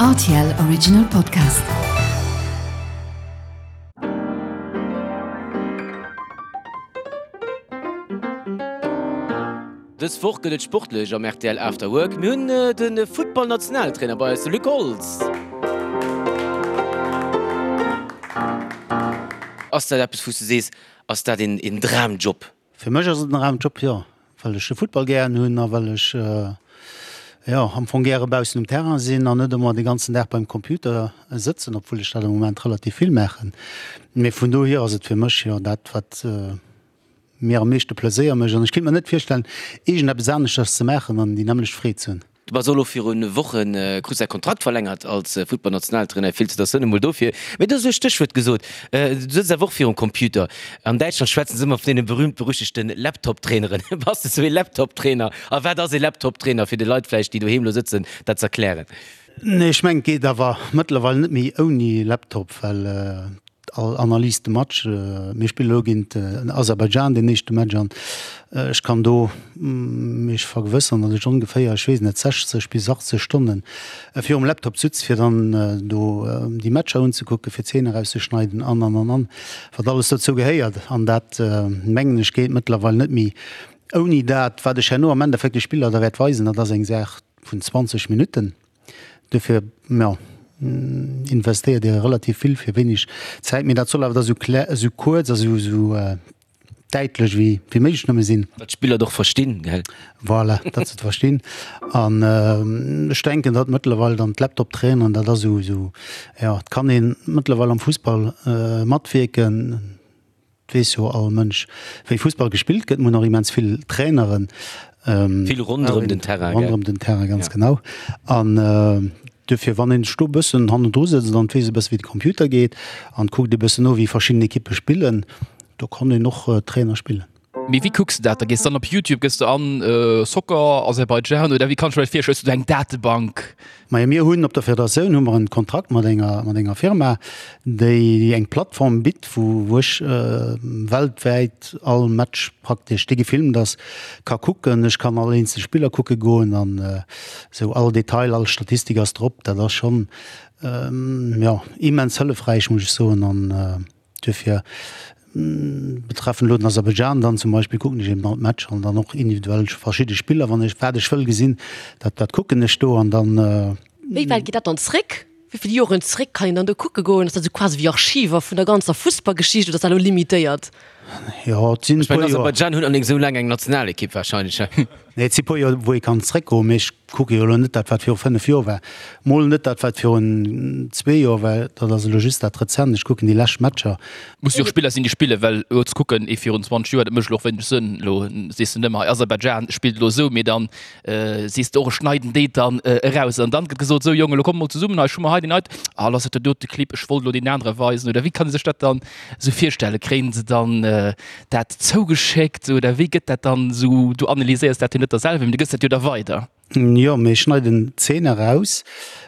Rtl Original Podcast. Dës Woch gëtt et sportlech am rtl After Work. Mir hunn de Futtball-Nationaltrainer bei eis, de Luc Holtz. Ass dat eppes, wou s du sees, ass dat een Dramjob? Fir mech ass et en Dramjob, jo, well ech de Futtball gären hunn a well ech, jo, am Fong gäre baussen um Terrain sinn an net ëmmer de ganzen Dag beim Computer sëtzen, obwuel ech dat am Moment relativ vill maachen. Mee vun dohier ass et fir mech, jo, dat wat mir am meeschte Pleséier mécht an ech kéint mer net virstellen, iergendeppes aneschters ze maachen an déi nämmlecht Freed ze hunn. Du bass och elo viru Woche krus däi Kontrakt verlängert als Futtballnationaltrainer. Felicitatioun emol dofir. Mee du hues e Stéchwuert gesot, du sëtz awer och virum Computer. An Däitschland schwätzen se ëmmer vun deene berühmt-berüchtegte Laptop-Traineren. Bass de sou ee Laptop-Trainer? A wat ass ee Laptop-Trainer, fir de Leit vläicht, déi doheem elo sëtzen, dat z'erklären? Nee, ech mengen, et geet awer mëttlerweil net méi ouni Laptop, well All Analyse de Match, mir spillen elo géint Aserbaidschan deen éischte Match an ech kann do mech vergewësseren, datt ech ongeféier, ech weess net, 60 bis 80 Stonne virum Laptop sutz, fir dann do déi Matcher unzekucken, fir Zeenen erauszeschneiden an, an, an, an, wat alles dozou gehéiert. An dat, mengen ech, geet mëttlerweil net méi ouni dat. Wat ech herno am Endeffekt de Spiller da wäert weisen, dat ass eng Saach vun 20 Minutten. Dofir, jo, investéiert Dir relativ vill fir wéineg Zäit. Mee dat soll awer da sou klä, sou kuerz a sou, sou däitlech wéi, wéi méiglech nëmme sinn. Datt d'Spiller et och verstinn, gell? Voilà, datt se et verstinn. An ech denken, datt mëttlerweil dann d'Laptop-Traineren, dat ass esou, esou, jo, et kann ee mëttlerweil am Fussball matwierken. Et weess jo all Mënsch, wéi Fussball gespillt gëtt. Mir hunn och immens vill Traineren. Vill ronderëm den Terrain, gell? Ronderëm den Terrain, ganz genau. An duerfir, wann een sech do e bëssen hannendru sëtzt an et weess e bësse wéi de Computer geet an kuckt e bëssen no, wéi verschidden Ekippe spillen, do kann een och Trainer spillen. Mee wéi kucks de dat da? Gees dann op Youtube, gëss de an Soccer Aserbaidschan oder wéi kann ech mer dat virstellen? Hues du do eng Datebank? Majo, mir hunn op der Federatioun hu mer en Kontrakt mat enger mat enger Firma, déi eng Plattform bitt, wou wou ech weltwäit all Match praktesch, dee gefilmt ass, ka kucken. Ech kann all eenzel Spiller kucke goen an esou all Detail, all Statistik ass drop. Dat ass schonn, jo, immens hëllefräich, muss ech soen an. Duerfir betreffend elo den Aserbaidschan dann zum Beispill kucken ech eben all d'Matcher an dann och individuell verschidde Spiller, wann ech wat ech wëll gesinn, dat dat kucken ech do an dann. Wéi wäit geet dat dann zréck? Wéi vill Joren zréck kann een dann do kucke goen? Ass dat esou quasi wéi Archiver vun der ganzer Fussballgeschicht oder ass dat elo limitéiert? Jo, et sinn e Ech mengen puer Joer. Aserbaidschan hunn allerdéngs esou laang eng Nationalekipp warscheinlech. Nee, et si puer Joer, wou ee kann zréckgoen, mee ech kucke jo elo net dat, wat viru 5 Joer war, mol net dat, wat virun zwee Joer war, dat ass elo just dat Rezent. Ech kucken déi lescht Matcher. Musse jo och Spiller sinn, déi spillen, well elo ze kucken, ee virun 20 Joer, dat mécht elo och wéineg Sënn. Elo sees de net méi, hei Aserbaidschan spillt elo esou, mee dann sees de och, ech schneiden déi dann eraus. An dann gëtt gesot, esou Jongen, elo kommt mol zesummen, hei ech hu mer hei deen heiten, ah lass et der dote Clip, ech wollt elo deen anere weisen. Oder wéi kann ee sech dat dann esou virstellen? Kréien se dann dat zougeschéckt oder wéi gëtt dat dann esou, du analyséiers dat jo net da selwer, mee du gëss dat jo da weider. Jo, mir schneiden Zeen eraus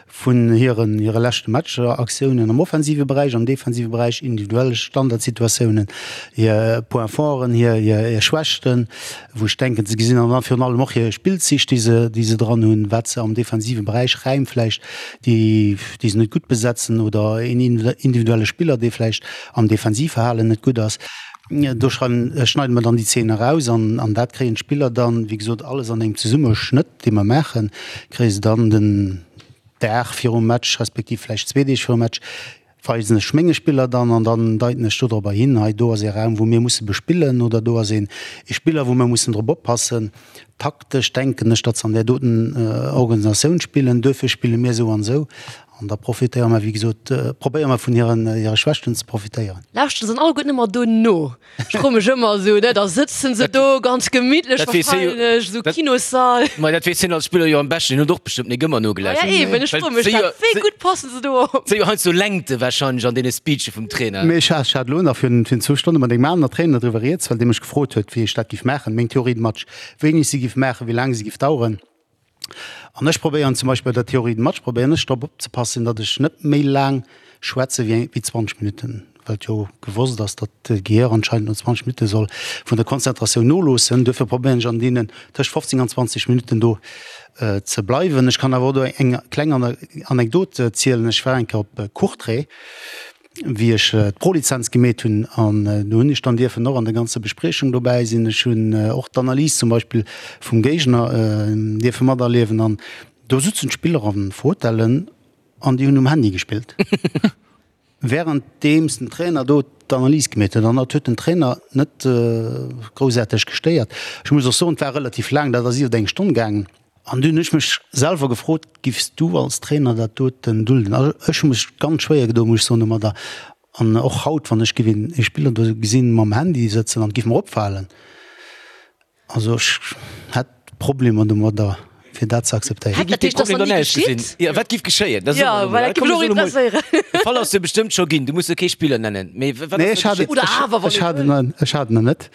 vun hiren hire leschte Matcher, Aktiounen am offensive Beräich, am defensive Beräich, individuell Standardsituatiounen, hir Points forten, hir hir Schwächten, wou ech denken ze gesinn, an dann virun allem och hir Spillzich, déi se déi se dran hunn, wat se am defensive Beräich, Räim vläicht, déi déi se net gutt besetzen oder een individuelle Spiller, dee vläicht am Defensivverhalen net gutt ass. Do schneide mer dann déi Zeen eraus an an dat kréien d'Spiller dann, wéi gesot, alles an engem Zesummeschnëtt, dee mer maachen, kréie se dann den Dag virum Match, respektiv vläicht zwee Deeg virum Match, weisen ech menge Spiller dann an dann deiten ech dodropper hin, hei do ass ee Raum, wou mir musse bespillen oder do ass een ee Spiller, wou mir mussen drop oppassen. Taktesch denken ech, datt se an där doten Organisatioun spillen, duerfir spille mir esou an esou. An da profitéiere mer, wéi gesot, probéiere mer vun hiren, hire Schwächten ze profitéieren. Lauschteren se dann alleguerten ëmmer do no? Ech froe mech ëmmer esou, ne, da sëtzen se do ganz gemittlech Dat weess hie jo, wahrscheinlech, esou Kinossall. Ma dat weess hien als Spiller jo am beschten, hien huet och bestëmmt nik ëmmer Ah ja, nogelauschtert. eben, ech froe mech dat, wéi gutt passen se do op? Si jo heiansdo Längte wahrscheinlech an deene Speeche vum Trainer. Mee ech hat, ech hat elo nach virun, virun zwou Stonne mat engem aner Trainer driwwer rieds, well dee mech gefrot huet, wéi ech dat giff maachen, meng Théorie de match, wéini ech se giff maachen, wéi laang se giff daueren. An ech probéieren zum Beispill bei der Théorie de match probéieren ech drop opzepassen, datt ech net méi laang schwätze wéi 20 Minutten. well et jo gewosst ass, datt d'Gehier anscheinend no 20 Minutte soll vun der Konzentratioun noloossen. Duerfir probéieren ech an deenen tëscht 15 an 20 Minutten do ze bleiwen. Ech kann awer och do eng kleng Anekdot zielen. Ech war eng Kéier op Courtrai, wéi ech d'Prolizenz gemeet hunn, an do hunn ech dann dierfen och an der ganzer Bespriechung dobäi sinn. Ech hunn och d'Analys zum Beispill vum Géigner dierfe materliewen an do sutzen d'Spiller an Fotellen an déi hunn um Handy gespillt. Währenddeems den Trainer do d'Analys gemeet huet, an dat huet den Trainer net groussaarteg gestéiert. Ech muss och soen, et war relativ laang, dat ass iwwer eng Stonn gaangen. An dunn hunn ech mech selwer gefrot, Giffs du als Trainer dat doten dulden? Also ech hu mech ganz schwéier gedoen, muss ech soen, domadder. An och haut, wann ech giff een Spiller do gesinn mam Handy sëtzen an et giff mer opfalen, Also ech hätt Problemer domadder fir dat ze akzeptéieren. Wéi giff dee Problem dann ausgesinn? Jo, wat giff geschéien? Dat soe mer elo mol. Komm, mir soen emol, de Fall ass jo bestëmmt scho ginn, du muss jo kee Spiller nennen, mee wat ass da geschitt? Oder awer, wann ee wëll. Ech hat en net.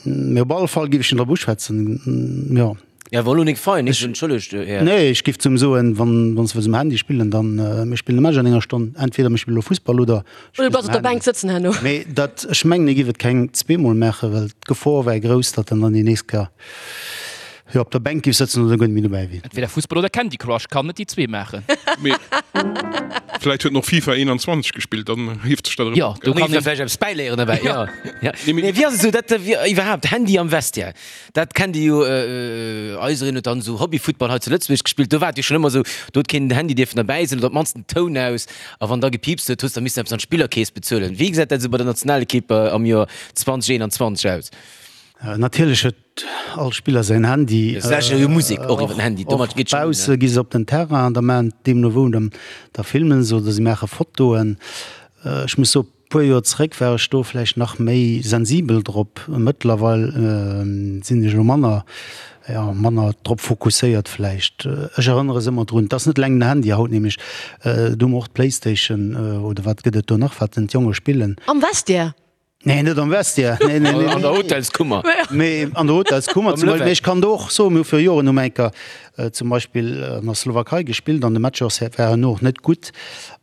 Mee op alle Fall giff ech en drop uschwätzen, jo. Ja, war lo nik fein, ech entschëllegt, Här. Nee, ech giff zum soen, wann wann se wëlls um Handy spillen, dann mir spillen e Match an enger Stonn, entweder mir spille lo Fussball oder Oder du bleifs op der Bänk sëtzen herno. Mee dat, ech mengen, e giff et keng zweemol maachen, well d'Gefor wär grouss, datt en dann déi nächst Kéier jo op der Bänk giff sëtzen oder guer net méi dobäi wier. Entweder Fussball oder Candy Crush, kann net déi zwee maachen. Mee vläit huet en och FIFA 21 gespillt, dann hieft sech dat erëm Jo, op, do gell? kann een vläicht eppes bäiléieren derbäi, jo. Mee wéi ass et esou, dat iwwerhaapt Handy am Vestiaire? Dat kennt Dir jo, eisereen huet dann esou Hobbyfuttball hei zu Lëtzebuerg gespillt, do war et jo schonn ëmmer esou, do huet keen den Handy dierfen derbäi sinn oder op d'mannst den Toun aus a wann da gepiipst huet, hues da missen eppes an d'Spillerkeess bezuelen. Wéi gesäit dat esou bei der Nationalekipp am Joer 2021 aus? Natierlech huet all Spiller säin Handy. Se lauschteren jo Musek och iwwer den Handy, domat geet schonn. Och bausse gi se op den Terrain an da maachen deemno wou, da filmen se oder se maache Fotoen. Ech muss soen, Puer Joer zeréck war ech do vläicht nach méi sensibel drop. Mëttlerweil sinn ech elo manner, jo, manner drop fokusséiert vläicht. Ech erënnere se ëmmer drun, et ass net eleng den Handy haut nämlech, do hu mer och d'Playstation oder wat gëtt et do nach, wat denn d'Jonge spillen. Am Vestiaire? Nee, net am Vestiaire, nee, nee, nee. An der Hotelskummer. Mee an der Hotelskummer zum Beispill. Mee ech kann do och soen, mir hu viru Joren hu mer eng Kéier zum Beispill an der Slowakei gespillt an de Match ass war herno och net gutt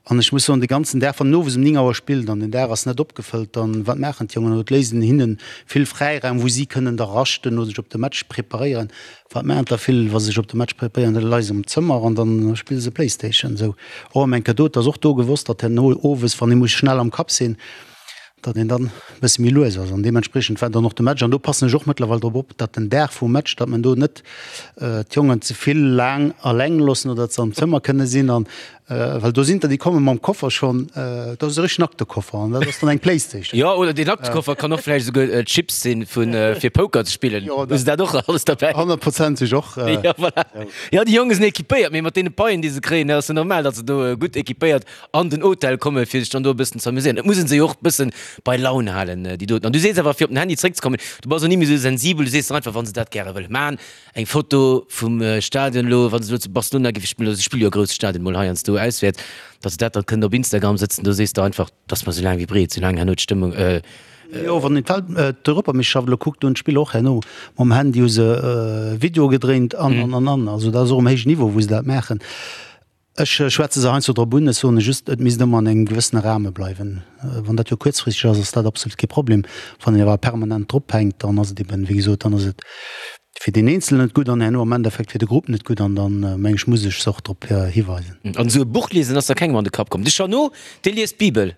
an ech muss soen, de ganzen Dag, wann en owes um 9 Auer spillt an den Dag ass net opgefëllt, dann wat maachen d'Jongen? Et léisst een hinnen vill Fräiraum, wou si kënnen da raschten oder sech op de Match preparéieren. Wat maachen der vill, wa se sech op de Match preparéieren? Da leie se am Zëmmer an dann spille se Playstation. Esou och ëm eng Kéier do. Et ass och do gewosst, datt herno owes, wann ee muss schnell am Kapp sinn, datt een dann e bësse méi lues ass an deementspriechend war dann och de Match an do passen ech och mëttlerweil drop op, datt den Dag vum Match, datt men do net d'Jongen ze vill laang alleng loossen oder datt se am Zëmmer kënne sinn an well do sinn der déi komme mam Koffer schonn, dat ass e richtegen Aktekoffer an dat ass dann eng Playstation. Jo, oder deen Aktekoffer kann och vläicht esouguer Chips sinn fir Poker ze spillen. Hu se dat och alles derbäi? Honnertprozenteg och. Jo, voilà. Jo, déi Jonge sinn equipéiert, mee mat deene Paien déi se kréien, ass jo normal, datt se do gutt equipéiert an den Hotel kommen, fir sech dann do e bëssen ze amuséieren. Et muss een se jo och e bëssen bei Laun halen, déi doten. An du sees awer, fir op den Handy zréckzekommen, du bass och ni méi esou sensibel, du sees dann einfach, wa se dat gäre wëlle man, eng Foto vum Stadion elo, wa se elo zu Barcelona géife spillen, oder se spille jo a grousse Stadien mol heiansdo auswäerts, datt se dat dann kënnen op Instagram sëtzen, do sees de einfach, 't ass mer esou laang wéi breet, soulaang herno d'Stëmmung. Jo, wann een d'Welt, d'Europameeschterschaft elo kuckt, do hunn d'Spiller och herno mam Handy hu se Videoe gedréint an, an, an, an. Also dat ass och um héijen Niveau, wou se dat maachen. Ech schwätze se heiansdo drop un. Ech soen just, et misst ëmmer an engem gewëssene Rahme bleiwen. Wann dat jo kuerzfristeg ass, ass dat absolut kee Problem. Wann een awer permanent drop hänkt, dann ass et eben, wéi gesot, dann ass et fir deen Eenzelen net gutt an herno am Endeffekt fir de Grupp net gutt. An dann, meng ech, muss ech se och drop hiweisen. An esou e Buch liesen ass da kengem an de Kapp komm. De Jeannot, dee liest d'Bibel.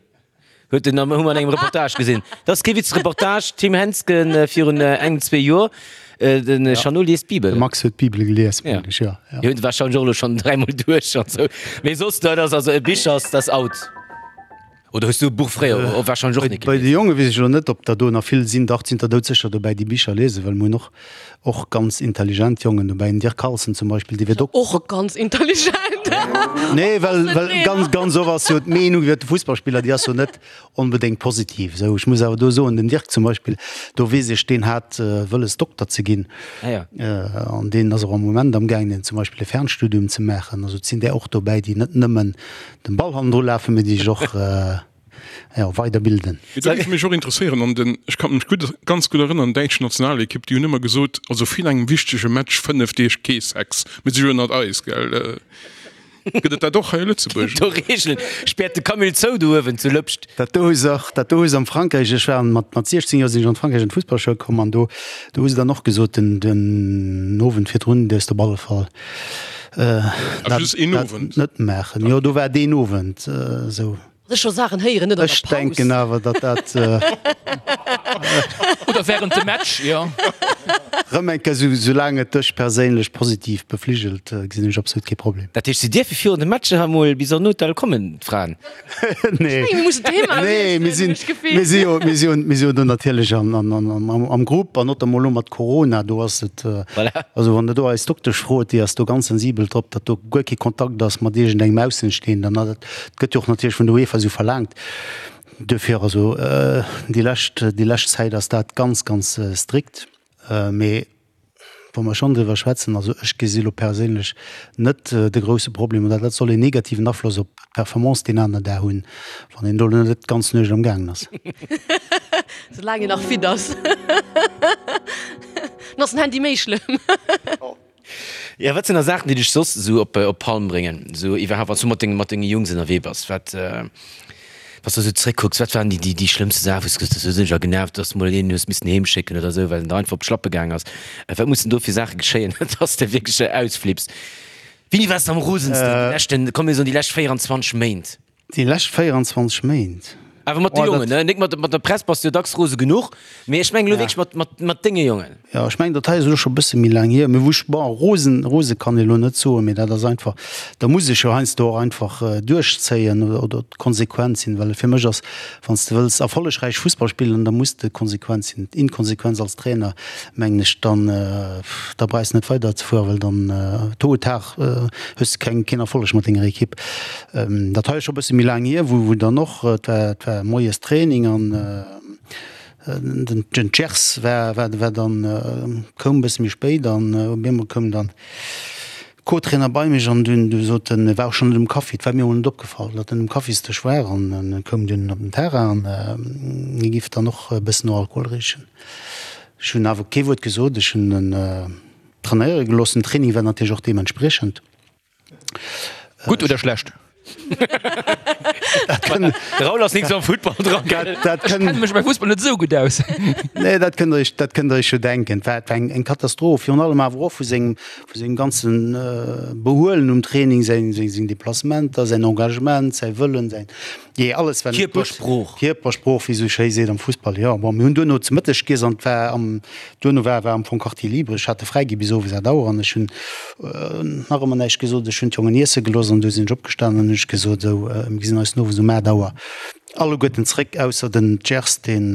Huet en am, hu mer an engem Reportage gesinn. Dat ass kee Witz, Reportage Tim Hensgen virun engem, zwee Joer. Den Jeannot liest d'Bibel. De Max huet d'Bibel gelies, mengen ech, jo. Jo, huet warscheinlech och elo schonn dräimol duerch an esou. Mee soss, dat ass also e Bicher ass, dat ass out. Oder hues du e Buch fréier och warscheinlech och net Bei gelies? de Jonge weess ech elo net, ob der do nach vill sinn. Dach, et sinn der doudsécher dobäi, déi Bicher liesen, well mir hunn och Och ganz intelligent Jongen dobäi, den Dirk Carlson zum Beispill, dee wier Dokter. Och ganz intelligent. Nee, well, well ganz, ganz oft ass jo d'Meenung iwwer de Fussballspiller, déi ass jo net onbedéngt positiv. Esou, ech muss awer do soen, den Dirk zum Beispill, do weess ech, deen hat wëlles Dokter ze ginn. Ah ja. An deen ass och am Moment amgaangen zum Beispill e Fernstudium ze maachen. Also et sinn där och dobäi, déi net nëmmen dem Ball hannendru lafen, mee déi sech och, jo, weiderbilden. Mee dat géif mech och interesséieren, an den, ech kann mech gutt, ganz gutt erënnern, däitsch Nationalekipp, déi hunn ëmmer gesot, also virun engem wichtege Match 5 Deeg kee Sex, mir si jo ënnert eis, gell. Gëtt et dat och hei a Lëtzebuerg? Do Reegelen. Späert de Camille zou do uewen zu Lëpscht. Dat do hu se och, dat do hu se am Frankräich, ech war mat, mat 16 Joer sinn ech an d'Frankräich an d'Fussballschoul komm an do, do hu se dann och gesot, den, den Owend virdrun dierfs de op alle Fall dat, just een Owend? net maachen. Jo, do war deen Owend esou. Ech scho Saachen héieren, net an der Ech Paus. denken awer, datt dat. Oder während dem Match, jo. Rëm eng Kéier, sou, soulaang et dech perséinlech positiv befligelt, gesinn ech absolut kee Problem. Dat heescht, si dierfe virun de Matcher emol bis an den Hotel kommen, d'Fraen? Nee. Mir mussen d'Thema Nee, mir wiesselen, sinn, hunn ech d'Gefill. mir si jo, mir si jo, mir si jo do natierlech an, an, an, am, am Grupp an notamment elo mat Corona, do ass et, Voilà. also wann Der do eis Doktesch frot, déi ass do ganz sensibel drop, datt do guer kee Kontakt ass mat iergendengem Aussenstehenden. Dat gëtt jo och natierlech vun der UEFA esou verlaangt. Duerfir also déi lescht, déi lescht Zäit ass dat ganz, ganz strikt. Mee wa mer schonn driwwer schwätzen, also ech gesi lo perséinlech net de grousse Problem oder dat soll een negativen Afloss op d'Performance deen aneren Dag hunn, wann een do net d'ganz Nuecht am gaangen ass. Soulaang een nach fit ass, dann ass den Handy méi schlëmm. Jo, wat sinn da Saachen, déi dech soss esou op op d'Palm bréngen, esou iwwerhaapt, wann s du mat denge mat denge Jungs ënnerwee bass? Wat, wann s du esou zréckkucks, wat waren déi déi déi schlëmmste Saachen, wou s du gesot hues, do sinn ech a genervt, dass du mol een hues missen heem schécken oder esou, well en der einfach op d'Schlappe gaang ass? Wat mussen do fir Saache geschéien, dass de wierklech ausflipps? Wéini waars de am rosensten déi leschten, komm mir soen déi lescht 24 Méint? Déi lescht 24 Méint. Awer mat de Jongen, ne? Nik mat mat der Press bass du jo dacks rose genuch, mee ech mengen elo wierklech mat mat mat denge Jongen. Jo, ech mengen, dat hei ass elo scho e bësse méi laang hier, mee wou ech, bon, rosen, rose kann ee elo net soen, mee dat ass einfach, da muss ech jo heiansdo och einfach duerchzéien oder oder konsequent sinn, well fir mech ass, wann s de wëlls erfollegräich Fussball spillen, da muss de konsequent sinn. Inkonsequenz als Trainer, mengen ech, dann da brauchs de net weiderzefueren, well dann tôt ou tard hues de keng keen Erfolleg mat denger Ekipp. Dat hei ass scho e bësse méi laang hier, wou dann och, et war, et war moies Training an den, den Gers war, war, war dann, koum e bësse méi spéit an op eemol koum dann Co-Trainer bei mech an dunn, du sot en, e war och schonn net um Kaffi, et war mir emol net opgefall, datt en um Kaffisdësch war an e koum dunn op den Terrain an hie giff dann och e bëssen no Alkohol richen. Ech hunn awer kee Wuert gesot, ech hunn en trainéiere gelooss. Den Training war natierlech och deementspriechend. Gutt oder schlecht? De Raoul ass nik sou am Futtball dran. Dat Ech kenne mech beim Fussball net esou gutt aus. Nee, dat kënnt der iech, dat kënnt der iech jo denken. Et war, et war eng, eng Katastroph, virun allem awer och vu sengem, vu sengem ganze Behuelen um Training, säin, seng, seng Deplacementer, säin Engagement, säi Wëllen, säin, jee, alles war net gutt. Kierpersprooch. Kierpersprooch, wéi esou schéi seet am Fussball, jo. Bon, mir hunn duerno zu Mëtteg giess an et war am, Duerno war war am Fong Quartier libre. Ech hat e fräi gi bis owes 8 Auer an ech hunn nach ëmmer näischt gesot. Ech hunn d'Jongen iesse gelooss an du sinn ech opgestanen an hunn ech gesot, esou, mir gesinn eis den Owes um 8 Auer alleguerten zréck, ausser den Gers, deen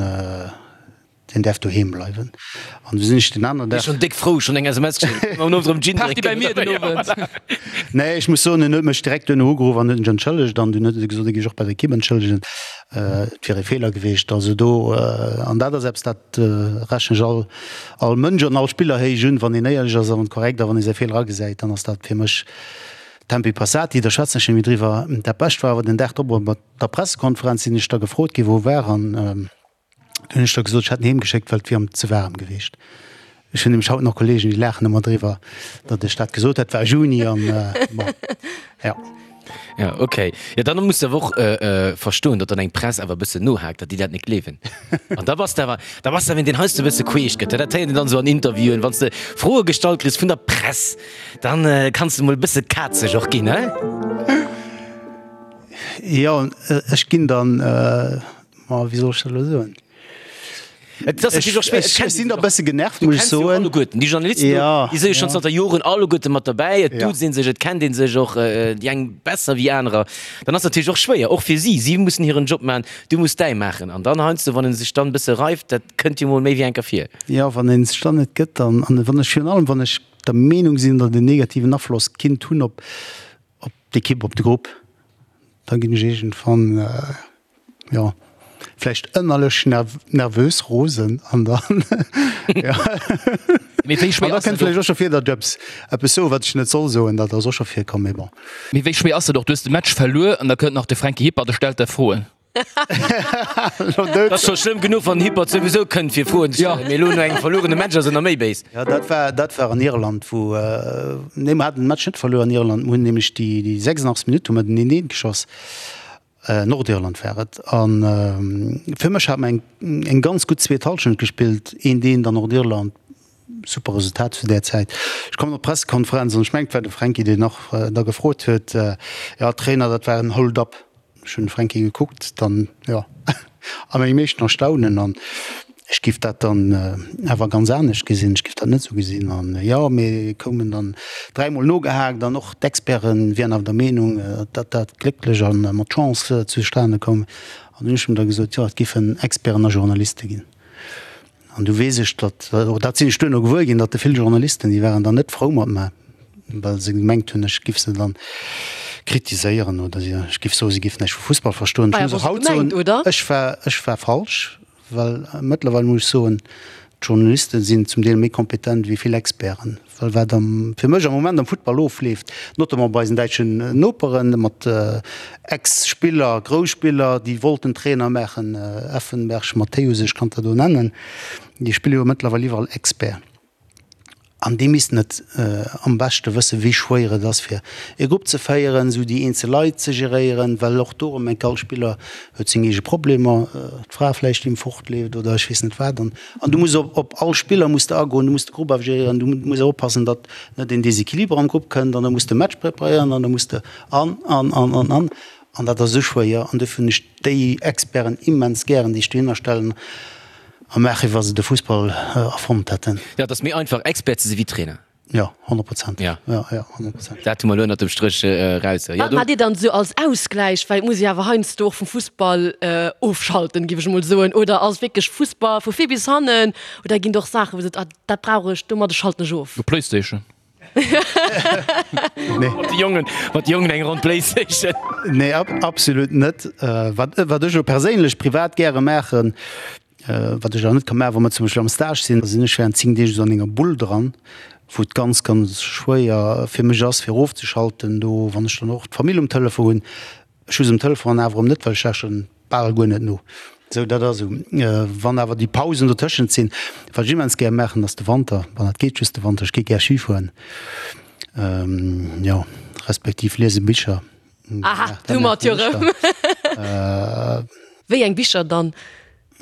deen däerf doheem bleiwen. An du sinn ech den aneren Dag. Schonn déck frou, schonn eng SMS geschéckt, am Owend erëm Gin Party drénken. bei mir den Owend. Nee, ech muss soen, en huet mech direkt duerno ugeruff an huet mech entschëllegt an dunn huet e gesot, e géif sech och bei der Ekipp entschëllegen. Et wier e Feeler gewiescht. Also do, an dat ass eppes, dat rechnen ech all, all Mënsch an all Spiller héich un, wann een éierlech ass a wann korrekt a wann ee säi Feeler agesäit, dann ass dat fir mech tempi passati, da schwätzen ech net méi driwwer. Dat Bescht war awer den Dag drop op der Pressekonferenz sinn ech da gefrot ginn, wou e war an du hunn ech da gesot, ech hätt en heem geschéckt, well et wier em ze waarem gewiescht. Ech hunn nämlech haut nach Kollegen, déi laachen ëmmer driwwer, datt ech dat gesot hätt. War Juni an bon, ja. Ja, okay. Ja, dann muss de awer och verstoen, datt dann eng Press awer e bëssen nohaakt, datt déi dat net gleewen. An da bass de awer, da bass de awer een, deen heiansdo e bësse queesch gëtt. Dat héiert een dann esou an Interviewen, wann s de Froe gestallt kriss vun der Press, dann kanns de mol e bësse kazeg och ginn, he? Jo, ech ginn dann, ma wéi soll ech dat elo soen? Et ass natierlech och schwéier, et Ech sinn da bësse genervt, muss ech soen. Alleguerten déi Journalisten do, Ja, déi si jo schonn ja. zanter Joren alleguerte mat derbäi. Et Ja. duuzt ee sech, et kennt ee sech och, déi eng besser wéi anerer. Dann ass natierlech och schwéier, och fir si. Si mussen hiren Job maachen, du muss däi maachen. An dann heiansdo, wann ee sech dann e bësse reift, dat kënnt jo mol méi wéi eng Kéier vir. Jo, wann ee sech dann net gëtt an an wann ech virun allem, wann ech der Meenung sinn, datt en negativen Afloss kinnt hunn op op d'Ekipp, op de Grupp, da ginn ech iergendwann, jo, vläicht ënnerlech nervös, rosen an dann, jo. Mee wéi schwéier An da ass kënnt dat vläicht och? och scho vir, datt ech eppes, eppes soen, wat ech net soll soen. Dat ass och scho virkomm, mee bon. Mee wéi schwéier ass dat och? Du hues de Match verluer an da kënnt nach de Franky Hippert a stellt der Froen. Dat ass scho schlëmm genuch, wann den Hippert souwisou kënnt fir Froen ze stellen, mee elo no engem verluerene Match ass en nach méi béis. Jo, dat war, dat war an Irland, wou, nee, mer haten den Match net verluer an Irland, mer hunn nämlech déi, déi 86. Minutt hu mer den 1, 1 geschoss, Nordirland war et, an fir mech hat mer eng, eng ganz gutt zweet Hallschent gespillt, 1, 1 an Nordirland, super Resultat zu där Zäit. Ech kommen op d'Pressekonferenz an ech mengen, et war de Fränki, deen och da gefrot huet, jo Trainer, dat war en Hold-up. Ech hunn de Fränki gekuckt, dann, jo, a mengem éischten Erstaunen an ech giff dat dann awer ganz anescht gesinn, ech giff dat net esou gesinn. An jo, mir koumen dann dräimol nogehaakt an och d'Experte wieren awer der Meenung, datt dat glécklech a mat Chance zustane koum. An hunn ech em da gesot, jo, et giffen Experten a Journaliste ginn. An du weess ech, datt, och dat sinn ech duerno gewuer ginn, datt de vill Journalisten, déi waren dann net frou mat mer, well se gemengt hunn, ech giff se dann kritiséieren oder si, ech giff soen, si giffen näischt vu Fussball verstoen. Ech muss och haut soen, ech war, ech war falsch, well mëttlerweil muss ech soen, d'Journaliste sinn zum Deel méi kompetent wéi vill Experten. Well wat am, fir mech am Moment am Futtball ofleeft, notamment bei eisen däitschen Noperen, mat Ex-Spiller, Grouss-Spiller, déi wollten Trainer maachen, Effenberg, Matthäus, ech kann der do nennen, déi spille jo mëttlerweil iwwerall Expert. An déi missten et am beschte wëssen, wéi schwéier et ass, fir e Grupp ze féieren, esou déi eenzel Leit ze geréieren, well och do erëm enk all Spiller huet seng eege Problemer, d'Fra vläicht, déi em fortleeft oder ech weess net wat. An An du muss op op all Spiller muss de agoen, du muss de Grupp ageréieren, du muss och oppassen, datt net een Desequiliber am Grupp kënnt an da muss de Match preparéieren an da muss de an, an, an, an, an. An dat ass esou schwéier an dofir hunn ech déi Experten immens gären, déi ech dohinner stellen a maachen, wéi wa se de Fussball erfonnt hätten. Jo, et ass méi einfach Expert ze si wéi Trainer. Jo, 100%. Ja. Ja, ja, 100%. Dat hu mer elo ënnert dem Stréch eraus. Wat maacht Dir dann esou als Ausgläich? Well et muss ee awer heiansdo och vum Fussball ofschalten, géif ech emol soen. Oder ass wierklech Fussball vu vir bis hannen? Oder ginn et och Saachen, wou Dir sot, ah, dat brauch ech, domadder schalten ech of? No Playstation. Nee. Mat de Jongen, mat de Jongen eng Ronn Playstation. Nee, absolut net. Wat, wat ech elo perséinlech privat gäre maachen, Wat ech awer net ka maachen, wa mer zum Beispill am Stage sinn, da sinn ech während 10 Deeg esou an enger Bull dran, wou et ganz, ganz schwéier fir mech ass, fir erofzeschalten do, wann ech dann och d'Famill um Telefon hunn. Ech hu se um Telefon an awer erëm net, well ech lauschteren bal guer net no. Esou, dat ass esou. Wann awer déi Pausen dotëschent sinn, wat ech immens gär maachen, ass de Wanter, bon, dat geet just de Wanter, ech gi gär Ski fueren, jo, respektiv liese Bicher. Aha, du mat jo rëm. Wéi eng Bicher dann?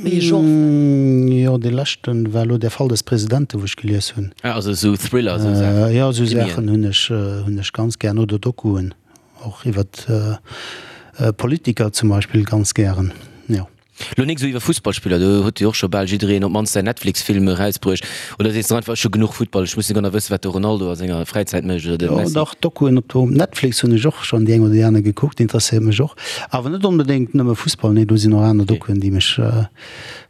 Wéi ee Genre vläicht? Jo, dee leschten war elo Der Fall des Presidenten, wou ech gelies hunn. Ah, also esou Thriller, esou Saachen. Jo, esou Saachen hunn ech, hunn ech ganz gären. Oder Dokuen, och iwwert Politiker zum Beispill ganz gären, jo. Lo nik esou iwwer Fussballspiller, do huet jo och scho bal jiddereen op d'mannst säin Netflix-Film erausbruecht. Oder sees de einfach, ech hu genuch Futtball, ech muss net genau wëssen, wat de Ronaldo a senger Fräizäit mécht oder de Jo, Messi? dach, Dokuen op do Netflix hunn ech och schonn déi eng oder déi aner gekuckt, interesséiert mech och. Awer net onbedéngt nëmme Fussball, nee, do sinn och aner Dokuen, déi mech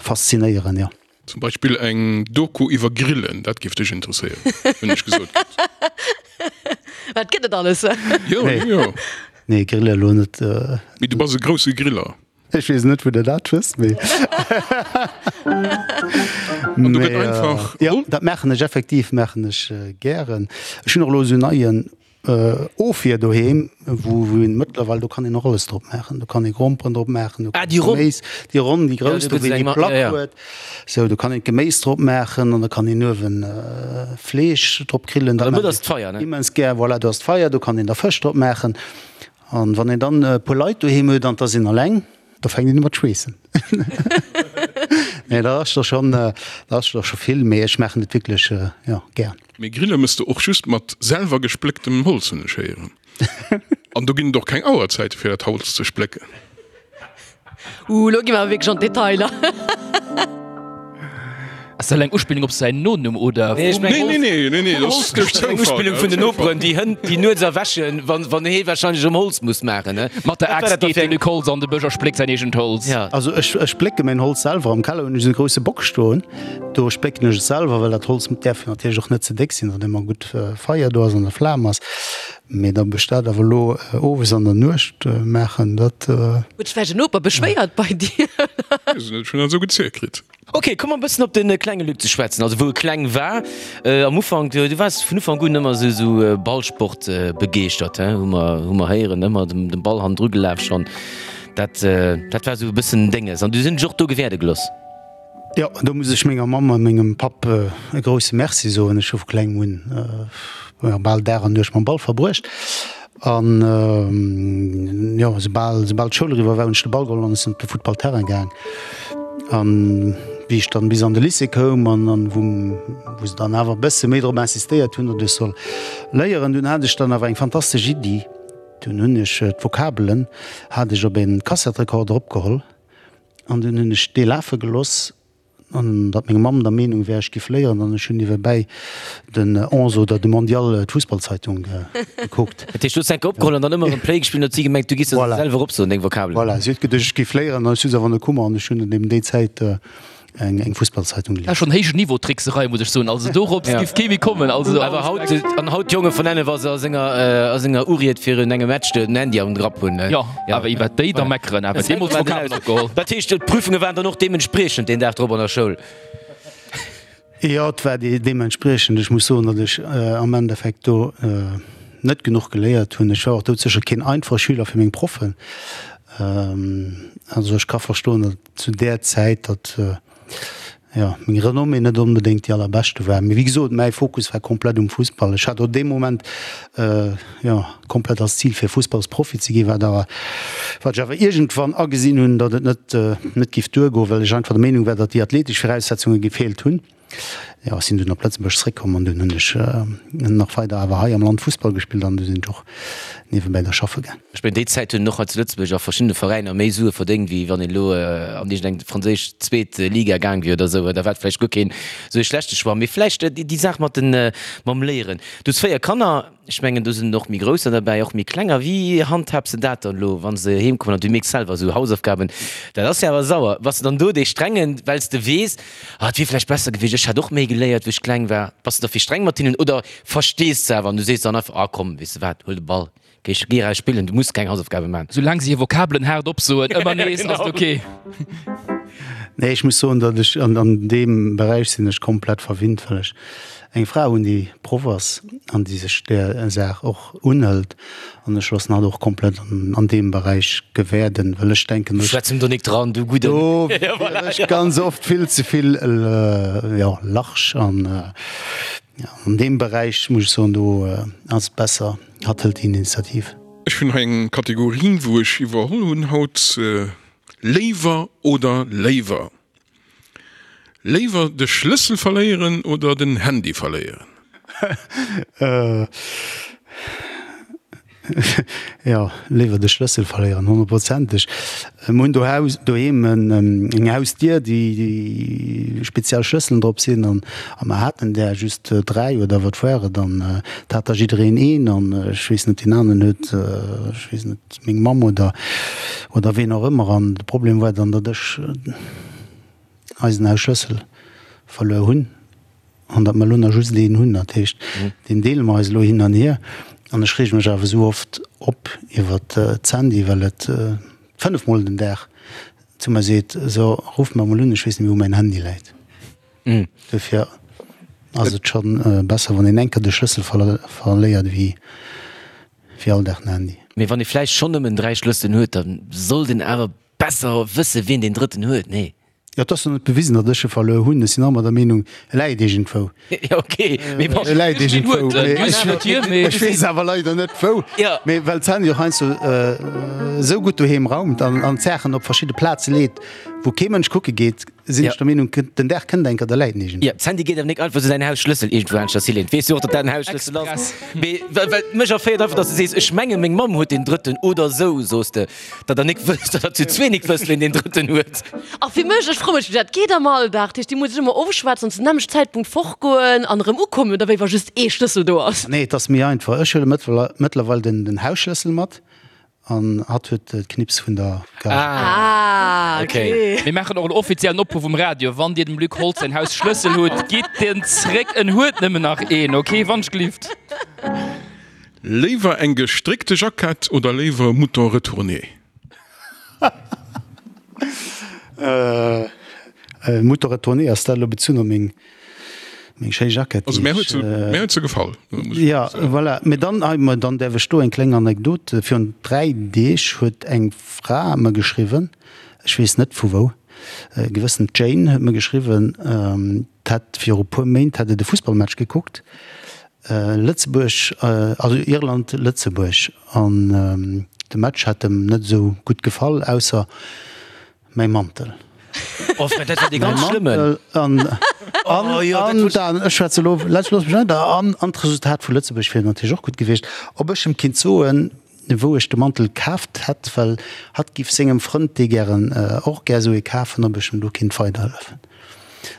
faszinéieren, jo. Zum Beispill eng Doku iwwer Grillen, dat géif dech interesséieren, hunn ech gesot kritt. Wat gëtt et alles? Jo, jo. Nee, Grille elo net. Mee du bass e grousse Griller. Ech weess net wou der dat wësst, mee An do gëtt einfach. Jo, dat maachen ech effektiv, maachen ech gären. Ech hunn och elo esou neien Ofwier doheem, wou wou een mëttlerweil, do kann een och alles drop maachen. Do kann ee Gromperen drop maachen, do Ah, déi ronn. Geméis, déi ronn, déi grouss, do do wou een déi Plack huet. Sou, do kann een d'Geméis drop maachen an da kann een uewen Fleesch drop grillen. Dat maachen ech immens gär. Voilà, do ass d'Feier, do kann een da Fësch drop maachen. An wann een dann e puer Leit doheem huet an 't ass een alleng, da fänkt een u mat schweessen. Nee, dat ass da schonn, dat ass da scho vill, mee ech maachen et wierklech, jo, gär. Mee grille mëss de och just mat selwer gesplécktem Holz, hunn ech héieren. An do ginn et och keng Auerzäite fir dat Holz ze splécken. Uh, lo gi mer awer wierklech an d'Detailer. Ass dat eng Uspillung op säin Nonumm oder? Nee, ech mengen, Nee, nee, nee, nee, dat ass duerch eng Zoufall. Uspillung vun den Noperen, déi Hënn, déi nuets erwächen, wann, wann hee wahrscheinlech erëm Holz muss maachen, ne? Mat der Wat war Axt dat da geet fir de eng. Luc Holtz an de Bësch a spléckt säin eegent Holz. Ja. Also ech, ech splécke mäin Holz selwer. Am Keller hunn ech esou e grousse Bock stoen, do splécken ech et selwer, well dat Holz däerf jo natierlech och net ze déck sinn, datt ëmmer gutt Feier do ass an der Flam ass. Mee datt ech dat awer elo owes an der Nuecht maachen, dat. Huet sech vläicht en Noper beschwéiert bei dir? Weess et net, ech hunn dat esou gezielt kritt. Ok, komm mer e bëssen op de klenge Luc ze schwätzen, also wou e kleng war. Am Ufank, du waars vun Ufank un ëmmer esou esou Ballsport begeeschtert, he, hu mer hu mer héieren, ëmmer dem dem Ball hannendru gelaf schonn. Dat, dat war esou e bëssen Dénges. An du sinn dech och do gewäerde geloss. Jo, do muss ech menger Mamm a mengem Papp e grousse Merci soen. Ech hu vu klengem un jo bal Dag an Nuecht mam Ball verbruecht. An jo, soubal, soubal d'Schoul eriwwer war, hunn ech de Ball geholl an ech sinn op de Futtballterrain gaang. An wéi ech dann bis an de Lycée koum an an wou, wou se dann awer e bësse méi drop insistéiert hunn, datt ech soll léieren, dunn hat ech dann awer eng fantastesch Iddi. Dunn hunn ech d'Vokabelen hat ech op e Kassettrekorder opgeholl an dunn hunn ech dee lafe geloss an datt meng Mamm der Meenung wär, ech giff léieren an ech hunn niewebäi den Onze oder de Mondial, d'Fussballzeitung gekuckt. Dat heescht, du hues enke opgeholl an dann ëmmer erëm Play gespillt an huet si gemengt, du giss se selwer opsoen, deng Vokabelen. Voilà, si huet geduecht, ech giff léieren an ech hu se awer net kummer an ech hunn eben déi Zäit eng Fussballzeitung gelies. Schon héijen Niveau Trickserei muss ech soen, also dorops giff kee méi kommen. Also awer haut an haut d'Jonge vun Enne wa se a senger a senger Uried virun engem Match den Handy am Grapp hunn. Jo, awer iwwert déi da meckeren, awer deemools Vokabeln opgeholl. Dat heescht d'Prüfunge waren dann och deementspriechend deen Dag drop an der Schoul? Jo, et war deementspriechend. Ech muss soen, datt ech am Endeffekt do net genuch geléiert hunn. Ech war och doudsécher keen einfache Schüler fir meng Proffen. Also ech ka verstoen, datt zu där Zäit, datt jo meng Renommée net onbedéngt déi allerbeschte war. Mee wéi gesot, mäi Fokus war komplett um Fussball. Ech hat och dee Moment jo komplett als Zil fir Fussballsprofi ze ginn, wat awer wat ech awer iergendwann agesinn hunn, datt et net net giff duergoen, well ech einfach der Meenung war, datt déi athletesch Viraussetzunge gefeelt hunn. Jo, ech sinn dunn op Lëtzebuerg zréckkomm an dunn hunn ech nach weider awer hei am Land Fussball gespillt an du sinn ech och niewebäi da schaffe gaang. Ech mengen, déi Zäit hunn och hei zu Lëtzebuerg a verschiddene Veräiner méi Sue verdéngt, wéi wann een elo an iergendeng franséisch zweet Liga gaang wier oder esou. Da war et vläicht guer keen esou ee schlechte Choix. Mee vläicht déi Saach mat den, mam Léieren. Du hues 4 Kanner. Ech mengen, do sinn och méi Grousser derbäi, och méi Klenger. Wéi handhabs de dat dann elo, wa se heem kommen an du mierks selwer esou Hausaufgaben, dat ass jo awer sauer. Bass de dann do dee Strengen, well s de weess, ah, et wier vläicht besser gewiescht, ech hätt och méi geléiert, wéi ech kleng war? Bass de da vill streng mat hinnen oder verstees de awer an du sees dann einfach, ah komm, weess de wat, huel de Ball, géi géi eraus spillen, du muss keng Hausaufgabe maachen? Soulaang se hir Vokabelen haart opsoen, ëmmer nees, ass et ok. Nee, ech muss soen, datt ech an deem Beräich sinn ech komplett verwinnt, well ech eng Fra hunn, déi Proff ass an déi sech där Saach och unhëlt. An ech loossen hatt och komplett an deem Beräich gewäerden, well ech denken, Du schwätz em do nik dran, du gudden. Do wier ech ganz oft vill ze vill, jo, large. An an deem Beräich muss ech soen, do ass et besser, hatt hëlt déi Initiativ. Ech hunn hei eng Kategorie, wou ech iwwerholl hunn haut, Léiwer oder léiwer? Léiwer de Schlëssel verléieren oder den Handy verléieren? Jo, léiwer de Schlëssel verléieren, honnertprozenteg. Mir hunn dohaus, doheem eng Hausdier, déi speziell Schlësselen drop sinn an a mer haten där just 3 oder wat war et an et hat da jiddereen een an ech weess net, deen aneren huet, ech weess net, meng Mamm oder oder ween och ëmmer an de Problem war dann, datt ech eisen Hausschlëssel verluer hunn an datt mer elo nach just een hunn. Dat heescht, deen deele mer eis elo hin an hier. An ech reege mech awer esou oft op iwwer d'Sandy, well et fënnefmol den Dag zu mer seet, So, ruff mer emol un, ech weess net méi, wou mäin Handy läit. Dofir ass et scho besser, wann een eng Kéier de Schlëssel verléiert, wéi all Dag den Handy. Mee wann ee vläicht schonn nëmmen 3 Schlësselen huet, da sollt een awer Besser wësse wien deen drëtten huet, nee? Jo, et ass jo net bewisen, datt ech e verluer hunn. Ech sinn ëmmer der Meenung, e läit iergendwou. Jo, ok, mee bon. E läit iergendwou, mee ech weess awer leider net wou. Mee well d'Sandy och heiansdo esou gutt doheem raumt an d'Saachen op verschidde Plaze leet, wou kee Mënsch kucke geet, sinn ech der Meenung, den Dag kënnt eng Kéier, da läit en iergendwou. Jo, d'Sandy geet awer nik einfach esou säin Hausschlëssel iergendwou aneschters hileeën. Weess jo och, datt dat en Hausschlëssel ass. Mee well mech erféiert einfach, datt s de sees, ech menge meng Mamm huet deen drëtten oder esou, soos de. Datt der nik wësst, datt der zu zwee nik wësst, ween deen drëtten huet. A fir mech, ech froe mech, wéi dat geet am Alldag. Dat heescht, déi muss sech ëmmer ofschwätzen an zum nämmlechten Zäitpunkt fortgoen an erëm ukommen, oder wéi, wa just ee Schlëssel do ass? Nee, et ass méi einfach. Ech huele mëttlerweil den Hausschlëssel mat an hatt huet d'Knips vun der Garage. Ah, okay. Mir maachen och en offiziellen Opruff um Radio, Wann Dir dem Luc Holtz säin Hausschlëssel hutt, gitt en zréck, en huet nëmmen nach een, okay, wannschgelift. Léiwer eng gestréckte Jackett oder léiwer e Mouton retourné? Mouton retourné, ass dat elo bezunn op meng. Meng schéi Jackett. Also mär huet se, mär huet se gefall. Ja, voilà. Mee dann, ah, ma dann däerf ech do eng kleng Anekdot. Virun 3 Deeg huet eng Fra mer geschriwwen, ech weess net vu wou, e gewëssen Jane huet mer geschriwwen, d'hätt viru puer Méint hätt et e Fussballmatch gekuckt, Lëtzebuerg, also Irland, Lëtzebuerg, an de Match hätt em net esou gutt gefall, ausser Mäi Mantel. Oh Fred, dat war dee ganz schlëmmen. An, an, oh, ja, an dann, ech schwätze lo, looss mech weider, an, an d'Resultat vu Lëtzebuerg wier natierlech och gutt gewiescht. Ob ech em kinnt soen, wou ech de Mantel kaaft hätt, well hatt giff sengem Frënd, dee gären, och gär esou ee kafen, ob ech em do kinnt weiderhëllefen.